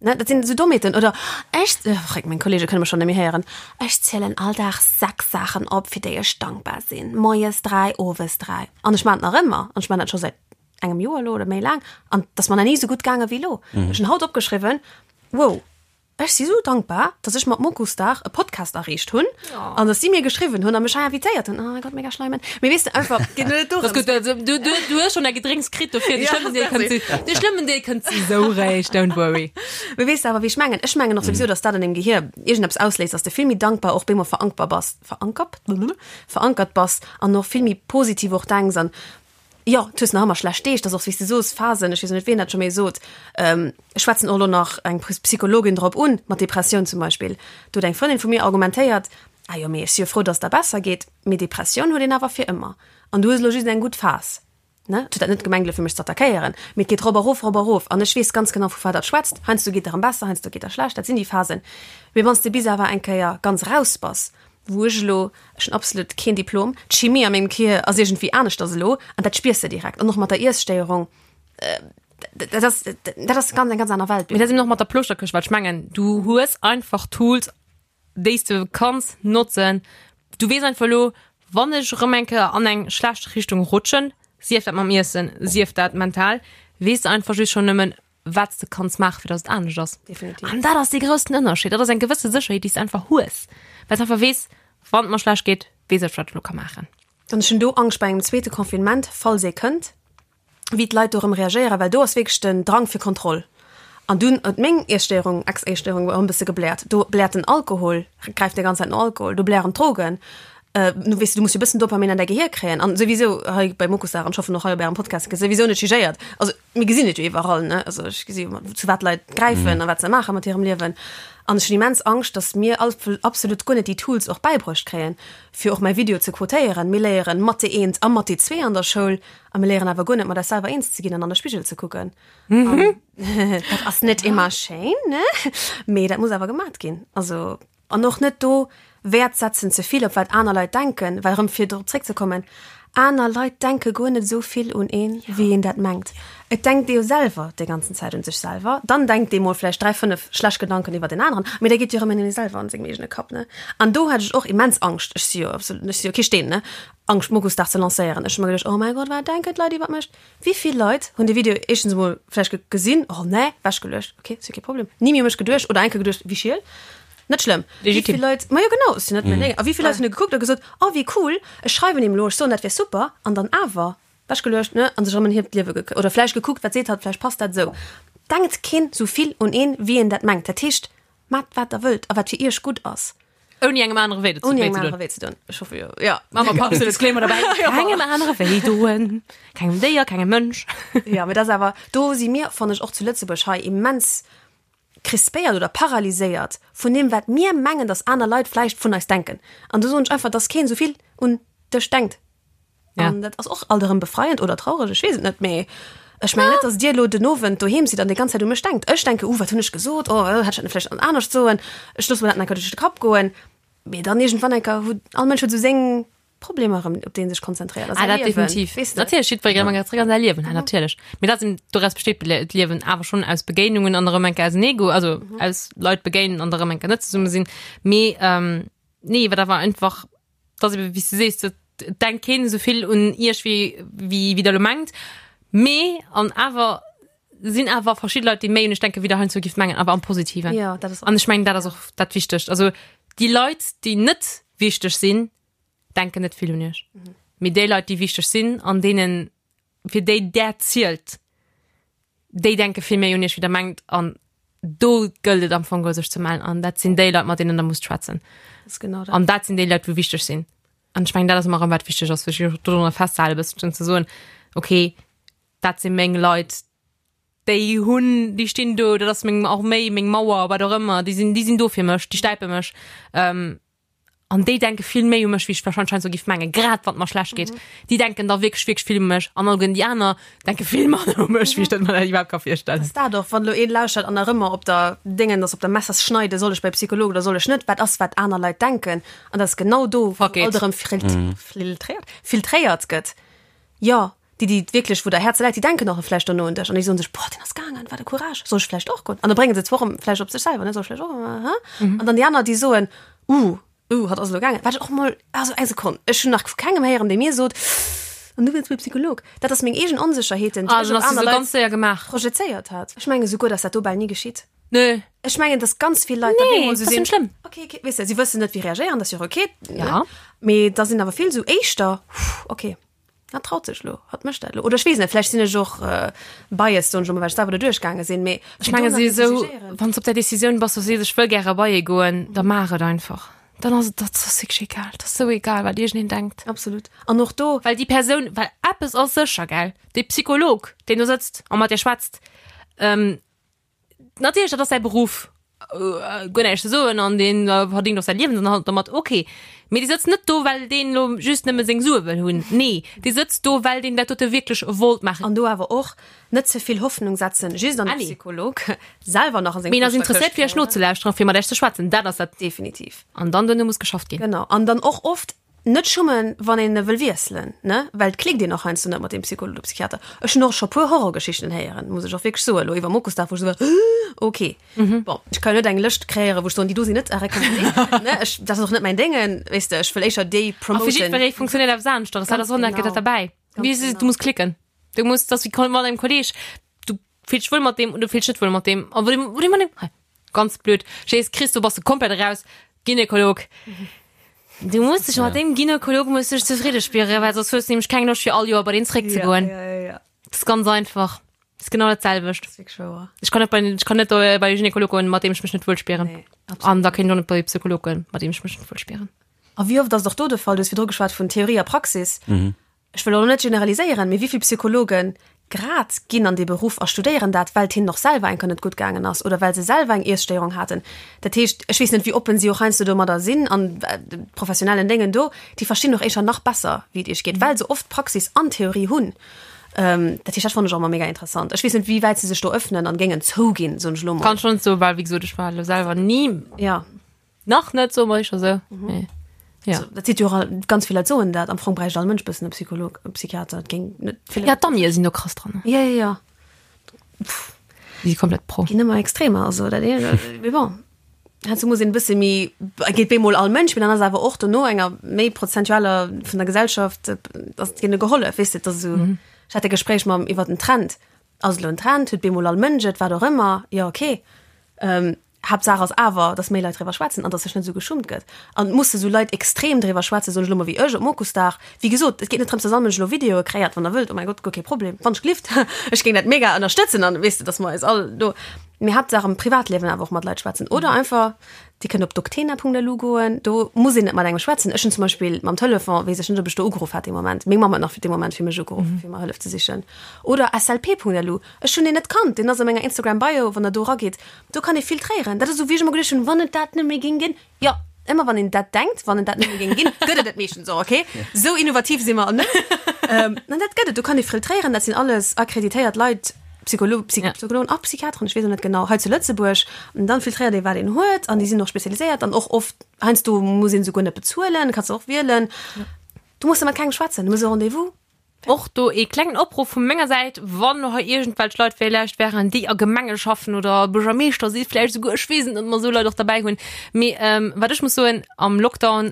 Ne, dat sinn esou Dommheeten. Oder ech, fréck, meng Kollege kënne mech schonn net méi héieren, ech zielen all Dag 6 Saachen op, fir déi ech dankbar sinn. Moies 3, owes 3. An ech maachen et nach ëmmer. An ech maachen dat scho säit engem Joer elo oder méi laang. An et ass mer nach ni esou gutt gaange wéi elo. Ech hunn haut opgeschriwwen, wow, ech si sou dankbar, dass ech mat Mokusdag e Podcast erreecht hunn an dass si mir geschriwwen hunn a mech hei invitéiert hunn. Oh mein Gott, mega schleimen. Mee weess de, einfach, et geet net dorëms. Das gutt, du, du, du hues schon däi Gedrénks kritt dofir. De schlëmmen Deel kënnt, de schlëmmen Deel kënnt sou réischt, don't worry. Mee weess de awer, wéi ech mengen? Ech mengen och souwisou, dass dat an deem Gehier iergendeppes ausléist, dass de vill méi dankbar och bemol verankbar bass, verankert? Verankert bass an och vill méi positiv och denks an Jo, du hues nach ëmmer schlecht Deeg, dat ass och wéi s de soos, Phasen, ech weess och net wien dat scho méi sot, ech schwätzen och elo nach eng Psychologin drop un, mat Depressioun zum Beispill, do huet eng Frëndin vu mir argumentéiert, ah jo, mee ech si jo frou, datt et der besser geet, mee Depressioun huet een awer fir ëmmer an du hues elo just eng gutt Phas, ne? Et huet dat net gemengt elo fir mech ze attackéieren, mee et geet rop erof, rop erof an ech weess ganz genau vu wat dat schwätzt, heiansdo geet der erëm besser, heiansdo geet der schlecht, dat sinn déi Phasen, mee wann s de bis awer eng Kéier ganz raus bass, Wou ech elo, ech hunn absolut keen Diplom, d'Chimie a mengem Kier ass iergendwéi aneschters elo an dat spiers de direkt. An och mat der Iesstéierung, dat ass, dat ass ganz eng ganz aner Welt. Mee dat ass eben och mat der Plouschterkëscht, well ech mengen, du hues einfach Tools, déi s de kanns notzen. Du weess einfach elo, wann ech erëm eng Kéier an eng schlecht Richtung rutschen, sief dat mam Iessen, sief dat mental, weess de einfach just schonn nëmmen, wat s de kanns maachen, fir dass et anescht ass. Definitiv. An dat ass dee groussen Ënnerscheed. Dat ass eng gewësse Sécherheet, déi s de einfach hues, well s de einfach weess, wann et mer schlecht geet, weess ech, wat ech elo ka maachen. An ech hunn do Angscht bei engem zweete Confinement, falls ee kënnt, wéi d'Leit do erëm reagéieren, well do ass wierklech den Drang fir Kontroll. An dunn huet meng Iesstéierung, Ex-Iesstéierung erëm e bësse gebläert. Do bläert den Alkohol, gräift déi ganz Zäit no Alkohol, do blären d'Drogen. Du weess, du muss jo e bëssen Dopamin an däi Gehier kréien. An souwisou hei bei Mokusdag, an ech hoffen och hei op Ärem Podcast, gëtt souwisou net jugéiert. Also Mir gesinn et jo iwwerall, ne? Also ech gesi jo, zu wat Leit gräifen a wat se maache mat hirem Liewen. An ech hunn immens Angscht, datt mir absolut guer net déi Tools och bäibruecht kréien, fir och mäi Video ze quotéieren. Mir léieren Mathé eent a Mathé zwee an der Schoul a mir léieren awer guer net, mat eis selwer eens ze ginn an an de Spigel ze kucken. An dat ass net ëmmer schéin, ne? Mee dat muss awer gemat ginn. Also. An och net do Wäert setzen ze vill op wat aner Leit denken, well erëm fir drop zréckzekommen, aner Leit denke guer net esou vill un een, wéi een dat mengt. Et denkt ee jo selwer déi ganzen Zäit un sech selwer, dann denkt ee mol vläicht 3, 5 schlecht Gedanken iwwer deen aneren, mee da geet jo erëm een un ee selwer an sengem eegene Kapp, ne? An do hat ech och immens Angscht, ech si jo absolut, ech si jo kee Steen, ne, Angscht Mokusdag ze lancéieren. Ech hu mer geduecht, oh mäi Gott, wat denken d'Leit iwwer mech? Wéi vill Leit hunn de Video éischtens emol vläicht gesinn, oh nee, wechgeluecht, ok, ass jo kee Problem, ni méi u mech geduecht oder eng Kéier geduecht, wéi schiel, net schlëmm. Wéi vill Leit, ma jo genau, ass jo net mäin Déng. A wéi vill Leit hunn e gekuckt a gesot, oh wéi cool, ech schreiwen him elo, ech soen dat wär super, an dann awer wechgeluecht, ne, an sech erëm en hiert Liewe ge, oder vläicht gekuckt, wat seet hatt, vläicht passt dat esou. Denkt keen esou vill un een, wéi een dat mengt. Dat heescht, Maacht wat der wëllt a wat fir iech gutt ass. Ouni engem anere wéi Ouni engem anere wéi ze doen. Ech hoffe jo. Ja. Mama, Papp, so Disclaimer dabei. Kengem anere wéi doen. Kengem Déier, kengem Mënsch. Ja, mee dat ass awer, do si mir, fannen ech, och zu Lëtzebuerg hei immens crispéiert oder paralyséiert vun deem, wat mir mengen, dass aner Leit vläicht vun eis denken. An do soen ech einfach, dass keen esou vill un dech denkt. Ja. An dat ass och alt erëm befreiend oder traureg, ech weess et net, mee ech mengen net, dass Dir elo den Owend doheem sidd an déi ganz Zäit u mech denkt. Ech denke, uh, wat hunn ech gesot, oh, hätt ech dat net vläicht anescht soen, ech loosse mer dat nach eng Kéier duerch de Kapp goen. Mee dann iergendwann eng Kéier huet all Mënsch huet esou seng Problemer erëm, op déi en sech konzentréiert a Ah, säi dat Liewen, definitiv. weess de. Natierlech, jiddweree huet zréck an säi Liewen, ja, natierlech. Mee dat sinn, doraus besteet d'Liewen awer schonn aus Begéinungen an erëm eng Kéier auseneegoen, also aus Leit begéinen an erëm eng Kéier net zesumme sinn. Mee nee, wat awer einfach dass eben, wéi s du sees, et denkt keen esou vill un iech wéi wéi wéi der elo mengt. Mee an awer sinn awer verschidde Leit, déi méi un iech denken, wéi der heiansdo gift mengen, awer am Positiven. Ja, dat ass An ech mengen, dat ass och dat Wichtegt. Also déi Leit, déi net wichteg sinn, denken net vill un iech. Mee déi Leit, déi wichteg sinn an deenen fir déi där zielt, déi denke vill méi un iech wéi der mengt an do gëllt et am Fong geholl sech ze mellen an dat sinn déi Leit mat deenen der musst schwätzen. Das ist genau dat. An dat sinn déi Leit wou wichteg sinn. An ech mengen dat ass ëmmer erëm wat wichteg ass, fir sech dorunner festzehalen e bësselchen ze soen, okay dat si meng Leit, déi hunn, déi stinn do, dat ass meng Arméi, meng Mauer, wat och ëmmer, déi sinn, déi sinn do fir mech, déi stäipe mech. An déi denke vill méi u mech, wéi ech wahrscheinlech heiansdo giff mengen, grad wann et mer schlecht geet. Déi denken da wierklech, wierklech vill u mech. An alleguerten déi aner denke vill manner u mech, wéi ech dat mer dat iwwerhaapt ka virstellen. Ass dat och, wann elo een lauschtert an nach ëmmer op der Déngen ass, op der Messerschneide, soll ech bei Psycholog oder soll ech net, wat ass, wat aner Leit denken? An dat ass genau do, wou Fuck it. alt erëm filtréiert, filtréiert gëtt. Jo, déi, déi wierklech, wou der Häerz läit, déi denken och vläicht dono un dech an déi soen sech, boah, deen ass gaangen, wat e Courage, soll ech vläicht och goen? An da brénge se zwar och vläicht op sech selwer, ne, soll ech vläicht och, hä? An dann déi aner, déi soen, uh, uh, hatt ass elo gaangen. Wat ech och mol, also eng Sekonn, ech hunn nach vu kengem héieren, dee mir sot, an du wëlls bei Psycholog. Dat ass meng eegen Onsécherheeten, déi Ah, ech dann op ass se aner sou Leit ganz séier gemaach. projezéiert hat. Ech menge souguer, dass dat do bal ni geschitt. Nö. Ech mengen, dass ganz vill Leit da Nee, bemol sou dat ass sinn, net schlëmm. Okay, okay, weess de, si wëssen net, wéi reagéieren, dat ass jo och okay, ne? Ja. Mee da sinn awer vill sou éischter, okay. Hat traut sech lo, hat mécht dat lo. Oder ech weess net, vläicht sinn ech och biased, soen ech elo mol, well ech selwer do duerchgaange sinn, mee Ech menge si esou, wann s op der Decisioun bass, du sees, ech wëll gäre bei ee goen, da maach et einfach. Dann ass et, dat ass wierklech egal, dat ass sou egal, wat iergendeen denkt. Absolut. An och do. Well déi Persoun, well eppes ass sécher, gell, dee Psycholog, deen do sëtzt a mat dir schwätzt, Natierlech, dat ass säi Beruff, guer näischt ze soen an deen verdéngt och säi Liewensunterhalt domat, ok. Mee dee sëtzt net do, well deen elo just nëmme seng Sue wëll hunn. Nee, dee sëtzt do, well deen dat dote wierklech wollt maachen. An do awer och net ze vill Hoffnung setzen, just an de Psycholog selwer nach a seng Mee en ass interesséiert, fir iech nozelauschteren, fir mat iech ze schwätzen, dat ass dat. Definitiv. An dann duerno muss geschafft ginn. Genau. An dann och oft Net schummen, wann een e wëll wiesselen, ne? Well et klickt een och heiansdo net mat deem Psycholog oder Psychiater. Ech hunn och scho puer Horrorgeschichten héieren, muss ech och wierklech soen, elo iwwer Mokusdag, wou ech esou war, Ok, bon, ech ka jo net eng Lëscht kreéieren, wou ech soen, déi do sinn net à recommander, ne? Ech, dat ass och net mäin Déngen, weess de, ech wëll éischer déi A fir promoten. jiddweree funktionéiert eppes aneschters, dat ass och nach dat derbäi. Ganz Wéi s genau. du muss klicken. Du muss, dat ass wéi mat engem Kolleeg, du fills dech wuel mat deem oder du fills dech net wuel mat deem. A wou deem, wou deem, hei, ganz blöd, Jees, Chris, do bass de komplett eraus, Gynekolog. Du muss dech mat deem Gynekolog muss dech zefridde spieren, well soss hues du nämlech keng Loscht fir all Joer bei deen zeréckzegoen. Ja, ja, ja. Das ist ganz einfach. Das ist genau dat selwecht. Das ist wirklich wouer. Ech kann net bei, ech kann net bei de Gynekolog goen, mat deem ech mech net wuel spieren. Nee, absolut. An da kéint ech och net bei de Psycholog goen, mat deem ech mech net wuel spieren. A wéi oft ass et och do de Fall, du hues virdru geschwat vun Theorie a Praxis, Ech wëll elo net generaliséieren, mee wéi vill Psychologe grad ginn an dee Beruff a studéieren dat, well et hinnen och selwer eng Kéier net gutt gaangen ass oder well se selwer eng Iesstéierung haten. Dat heescht, ech weess net, wéi oppen si och heiansdo domadder sinn an de professionellen Déngen do, déi verstinn och éischer nach besser, wéi et iech geet, well se oft Praxis an Theorie hunn. Dat heescht, dat fannen ech och ëmmer mega interessant. Ech weess net, wéi wäit se sech do öffnen an géingen zouginn, soen ech elo mol. Kann ech net soen, well wéi gesot, ech war elo selwer ni. Jo. Nach net, soe mer éischer sou. Mee ja. Also, dat seet jo och all, ganz vill Leit soen dat. Am Fong bräicht all Mënsch bëssen e Psycholog, e Psychiater. Dat géing net vill. Ja, d'Amie sinn do krass dran. Ja, ja, ja. Déi si komplett pro. Ginn ëmmer extremer, also dat ee, mee bon. Heiansdo muss een e bësse méi, geet bemol all Mënsch, mee dann ass awer och dono enger méi prozentualer vun der Gesellschaft, ass deene gehollef, weess de, et ass esou. Ech hat e Gespréich mam iwwer den Trend. Ass elo en Trend, huet bemol all Mënsch et, wat och ëmmer, jo okay. Haaptsaach ass awer, dass méi Leit driwwer schwätzen an dass sech net esou geschummt gëtt. An et musse sou Leit extrem driwwer schwätzen, soen ech elo mol, wéi ech op Mokusdag. Wéi gesot, et geet net drëms, dass all Mënsch elo Videoe kréiert, wann der wëllt, oh mäi Gott, guer kee Problem, wann ech gelift, ech géing dat mega ënnerstëtzen an weess de, dass mer eis all do, mee Haaptsaach am Privatliewen awer och mat Leit schwätzen oder einfach, Dir kënnt op doctena.lu goen, do muss een net mat engem schwätzen. Ech hunn zum Beispill mam Telefon, weess ech net, ob ech do ugeruff hat dee Moment, meng Mamm huet nach fir dee Moment fir mech ugeruff, fir mer Hëllef ze sichen. Oder slp.lu, ech hunn deen net kannt, deen ass a menger Instagram Bio, wann der do erageet, do kann ee filtréieren. Dat ass esou wéi ech ëmmer geduecht hunn, wann et dat net méi géing ginn, jo, ëmmer wann een dat denkt, wann et dat net méi géing ginn, gëtt et et meeschtens och, okay? Esou innovativ si mer net. An dat gëtt et, do kann ee filtréieren, dat sinn alles akkreditéiert Leit, Psycholo Psy Ja. Psychologen a Psychiateren, ech weess och net genau, hei zu Lëtzebuerg. An dann filtréiert ee wat een huet an déi sinn och spezialiséiert an och oft heiansdo muss een souguer net bezuelen, kanns de och wielen. Du muss da mat kengem schwätzen, du muss e Rendez-vous. Och do ee klengen Opruff vu menger Säit, wann elo hei iergendwelch Leit villäicht wären, déi a Gemenge schaffen oder Buergermeeschter si vläicht esouguer, ech weess et net, ob mer esou Leit och derbäi hunn. Mee wat ech muss soen, am Lockdown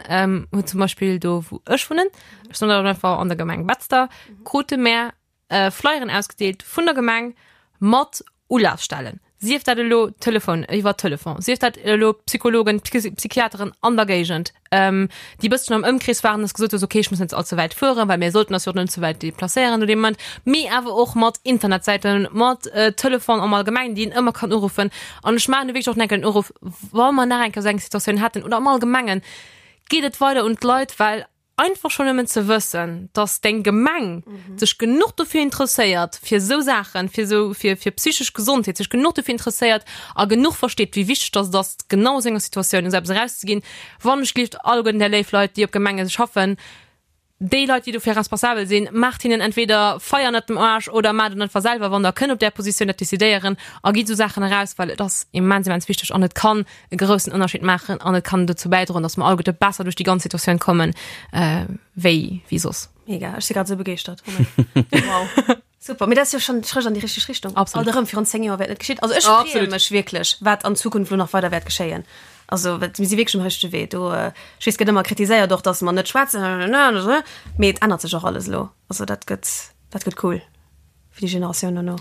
huet zum Beispill do wou ech wunnen, ech soen dat einfach, an der Gemeng Betzder, krute mär Flyeren ausgedeelt vun der Gemeng mat Ulafstellen, sief dat elo Telefon, iwwer Telefon, sief dat elo Psychologen, Psychiateren an der Géigend, déi e bësschen am Ëmkrees waren, dass gesot hues, okay, ech muss net allze wäit fueren, well mir sollten eis jo och net ze wäit deplacéieren no deem Moment, mee awer och mat Internetsäiten, mat Telefon am Allgemengen, déi een ëmmer kann uruffen. An ech maachen do wierklech och nach enken Uruff, wa mer nach eng Kéier esou eng Situatioun hätten oder am Allgemengen, geet et weider un d'Leit, well. Einfach schonn nëmmen ze wëssen, dass deng Gemeng sech genuch dofir interesséiert, fir esou Saachen, fir esou, fir, fir psychesch Gesondheet, sech genuch dofir interesséiert a genuch versteet, wéi wichteg dass et ass, genau a sou enger Situatioun esou eppes erauszeginn. Wann ech gelift, alleguerten där léif Leit, déi op Gemenge schaffen, déi Leit, déi dofir responsabel sinn, maacht hinnen entweder Feier ënnert dem Aarsch oder maacht et einfach selwer, wann der kënnt op där Positioun dat decidéieren a gitt esou Saachen eraus, well et ass immens, immens wichteg an et kann e groussen Ënnerscheed maachen an et kann dozou bäidroen, datt mer alleguerte besser duerch déi ganz Situatioun kommen, wéi, wéi soss. Mega, ech si grad esou begeeschtert. Wow. Super, mee dat ass jo schonn Schrëtt an déi richteg Richtung. Absolut. Alt erëm, virun 10 Joer wär et net geschitt. Also ech freeë mech wierklech, wat an Zukunft elo nach weider wäert geschéien. Also mir si wierklech um richtege Wee. Do, ech weess, et gëtt ëmmer kritiséiert och, datt mer net schwätzen, mee et ännert sech och alles elo. Also dat gëtt, dat gëtt cool fir déi Generatioun dono.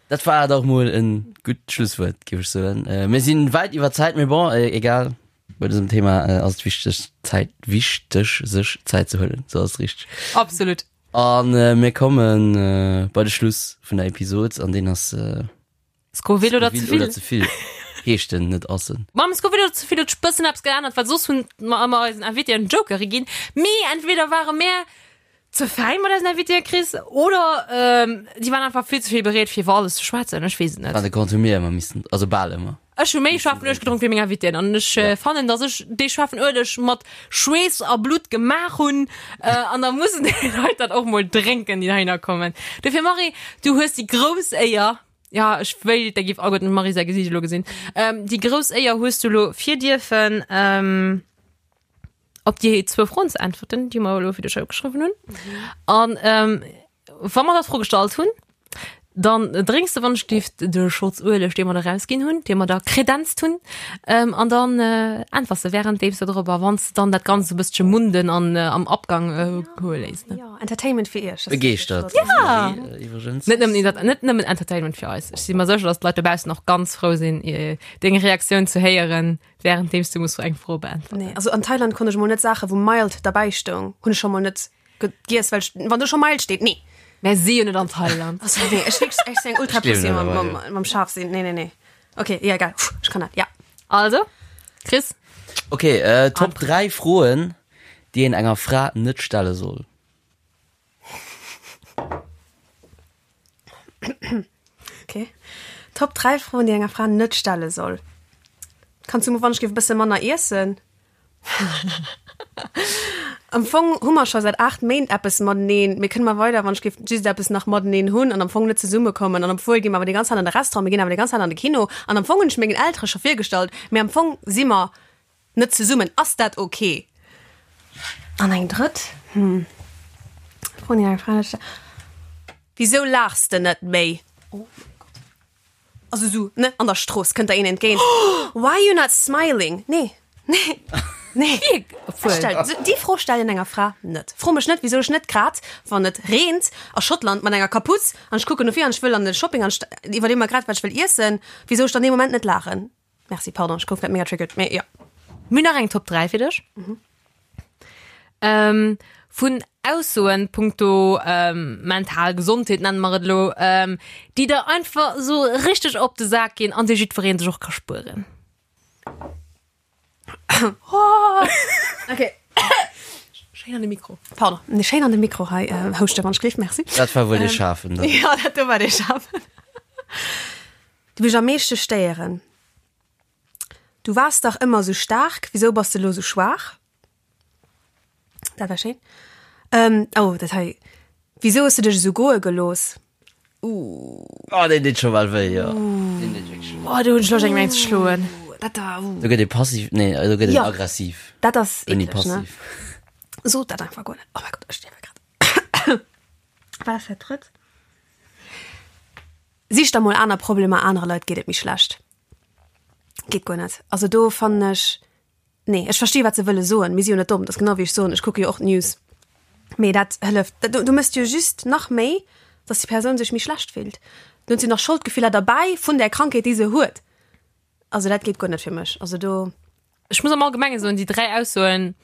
Dat war dach mol e gutt Schlusswuert, géif ech soen. Mir sinn wäit iwwer Zäit, mee bon, egal. Bei dësem Thema ass et wichteg, Zäit, wichteg, sech Zäit ze huelen. Sou ass et richteg. Absolut. An mir komme bei de Schluss vun der Episod, an deen ass Scoville oder ze vill? Oder ze vill heescht en, net ass en. Mam Scoville oder ze vill huet sech bëssen eppes geännert, well soss hunn mer ëmmer eisen Invitéen Jokere ginn. Mee entweder ware mär ze fäin mat eisen Invitéen, Chris, oder déi waren einfach vill ze vill bereet fir iwwer alles ze schwätzen. Ech weess et net. An de Compte hu mir ëmmer missen, also bal ëmmer. Ech hu méi schaarfen Ueleg gedronk wéi meng Invitéen an ech fannen, dass ech dee schaarfen Ueleg mat Schweess a Blutt gemaach hunn an da mussen déi Leit dat och mol drénken, déi heihinner kommen. Dofir Marie, du hues déi grouss Éier, jo ech wéilt, der giff alleguerten dem Marie säi Gesiicht elo gesinn, déi grouss Éier hues du elo fir dierfen op déi zwou Froen ze äntwerten, déi mer elo fir dech opgeschriwwen hunn. An wa mer der d'Fro gestallt hunn, dann drénks de wann ech giff de Schotz Ueleg, dee mer der rausginn hunn, dee mer der kredenzt hunn, an dann äntwers de währenddeems de drop a wann s de dann dat Ganzt e bëssche munden an am Abgang goe léiss. Ne? Jo, Entertainment fir iech. Begeeschtert. Ja! Iwwregens. Net nëmmen, dat, net nëmmen Entertainment fir eis. Ech si mer sécher, dass d'Leit dobaussen och ganz frou sinn, deng Reaktioun ze héieren, währenddeems du muss eng Fro beäntwerten. Nee, also an Thailand konnt ech mol net Saache wou mild derbäi stoung, hunn ech scho mol net Giess, well wann do scho mild steet, nee. Mär si jo net an Thailand. Also nee, ech wierklech, ech sinn eng ultra Pussy mam, mam, mam Schaf sinn. Nee, nee, nee. Okay, ja, egal. Puh, ech kann dat, ja. Also, Chris? Okay, äh, Top 3 Froen, déi een enger Fra net stelle soll. Okay. Top 3 Froen, déi enger Fra net stelle soll. Kanns du mol wann ech géif e bësse manner iessen? Am Fong hu mer scho säit 8 Méint eppes mateneen, mee kënne mer weider wann ech géif just eppes nach mateneen hunn an am Fong net zesummekommen an obwuel gi mer awer déi ganz Zäit an de Restaurant, mir ginn awer déi ganz Zäit an de Kino an am Fong hunn ech mengen Eltere scho virgestallt, mee am Fong si mer net zesummen. Ass dat ok? An eng drëtt, hm, Fro déi eng Fra net stell, Wisou laachs de net méi? Oh mäi Gott. Also sou, ne, an der Strooss kënnt der een entgéint, Why you not smiling? Nee, nee, nee. Ech stell, déi Fro stellen enger Fra net. Fro mech net, wisou ech net grad, wann et reent a Schottland mat enger Kaputz an ech kucken no vir an ech wëll an de Shopping an ech iwwerleeë mer grad, wat ech wëll iessen, wisou ech dann dee Moment net laachen. Merci, pardon, ech gouf grad mega triggered, mee jo. Mir hunn nach eng Top 3 fir dech. Vun Aussoen punkto mental Gesondheet, nenne mer et elo, déi der einfach esou richteg op de Sak ginn an déi jiddweree sech och ka spueren. Okay. Schéin an de Mikro. Pardon, nee, schéin an de Mikro hei houschte wann ech gleef, merci. Dat war wuel dee Schaarfen dann. Jo, dat do war dee Schaarfen. Déi mech am meeschte stéieren. Du waars dach ëmmer sou staark, wisou bass de lo sou schwaach? Dat war schéin. Ähm, oh, dat hei. Wisou hues du dech esou goe gelooss? Ooh. Oh, deen deet scho bal wéi, jo. Deen deet wierklech wéi. Oh, do hunn ech Loscht, engem eng ze schloen. Dat da, ooh. Do gëtt ee passiv, nee, do gëtt een Jo. aggressiv. Dat ass Ouni eekleg, ne? passiv. Sot dat einfach guer net. Oh mäi Gott, ech stierwe grad. Wat ass dat drëtt? Sich der mol aner Problemer, anere Leit geet et méi schlecht. Geet guer net. Also do fannen ech, nee, ech versti wat se wëlle soen, mir si jo net domm, dat ass genau wéi ech soen, ech kucke jo och d'News. Mee dat hëlleft, du du méchs jo just nach méi, datt déi Persoun sech méi schlecht fillt. Dann huet se nach Scholdgefiller derbäi vun där Krankheet déi se huet. Also dat geet guer net fir mech. Also do. Ech muss am Allgemenge soen, déi 3 Aussoen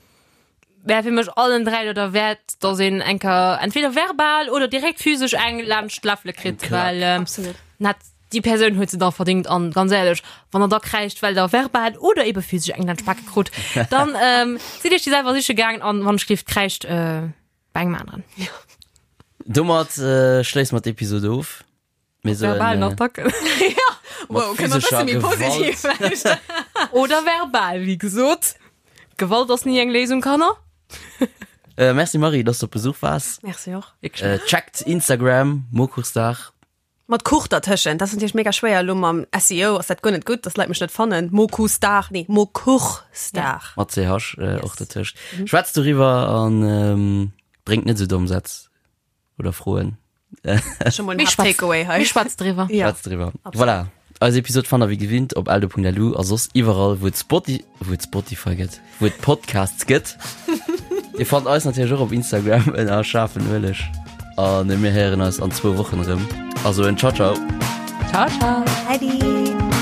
wär fir mech allen 3 do derwäert, dass een eng Kéier entweder verbal oder direkt physesch eng laanscht d'Läffele kritt, well Absolut. net. Déi Persoun huet se da verdingt an ganz éierlech, wann der da kräischt, well der verbal oder ebe physesch eng laanscht d'Bake krut, dann ähm, sidd iech déi selwer siche gaangen an wann ech gleeft, kräischt äh, bei engem aneren. Domat äh, schléisse mer d'Episode of. Mir soen, Verbalen äh, Attacken. Wow, kënne mer e bësse méi positiv vläicht. Oder verbal, wéi gesot. Gewalt ass ni eng Léisung, Kanner. Äh, merci Marie, dass du op Besuch waars. Merci och. Äh, checkt Instagram, Mokuchsdag. Mat Kuch dertëschent, dat ass natierlech mega schwéier elo mam SEO ass dat guer net gutt, dass Leit mech net fannen. Mokusdag, nee Mokuchsdag. Mat CH äh, och dertëscht. Schwätzt doriwwer an ähm, bréngt net esou domm Sätz oder Froen. Schon mol en Hard Takeaway hei. Mir schwätzt driwwer. Ja. Schwätzt driwwer. Voilà. Eis Episode fannt der wéi gewinnt op eldo.lu a soss iwwerall wou et Spoti wou et Spotify gëtt, wou et Podcasts gëtt. Dir fannt eis natierlech och op Instagram ënner schaarfen Ueleg. An mir héieren eis an zwou Wochen erëm. Also en Ciao ciao. Ciao, ciao. Äddi.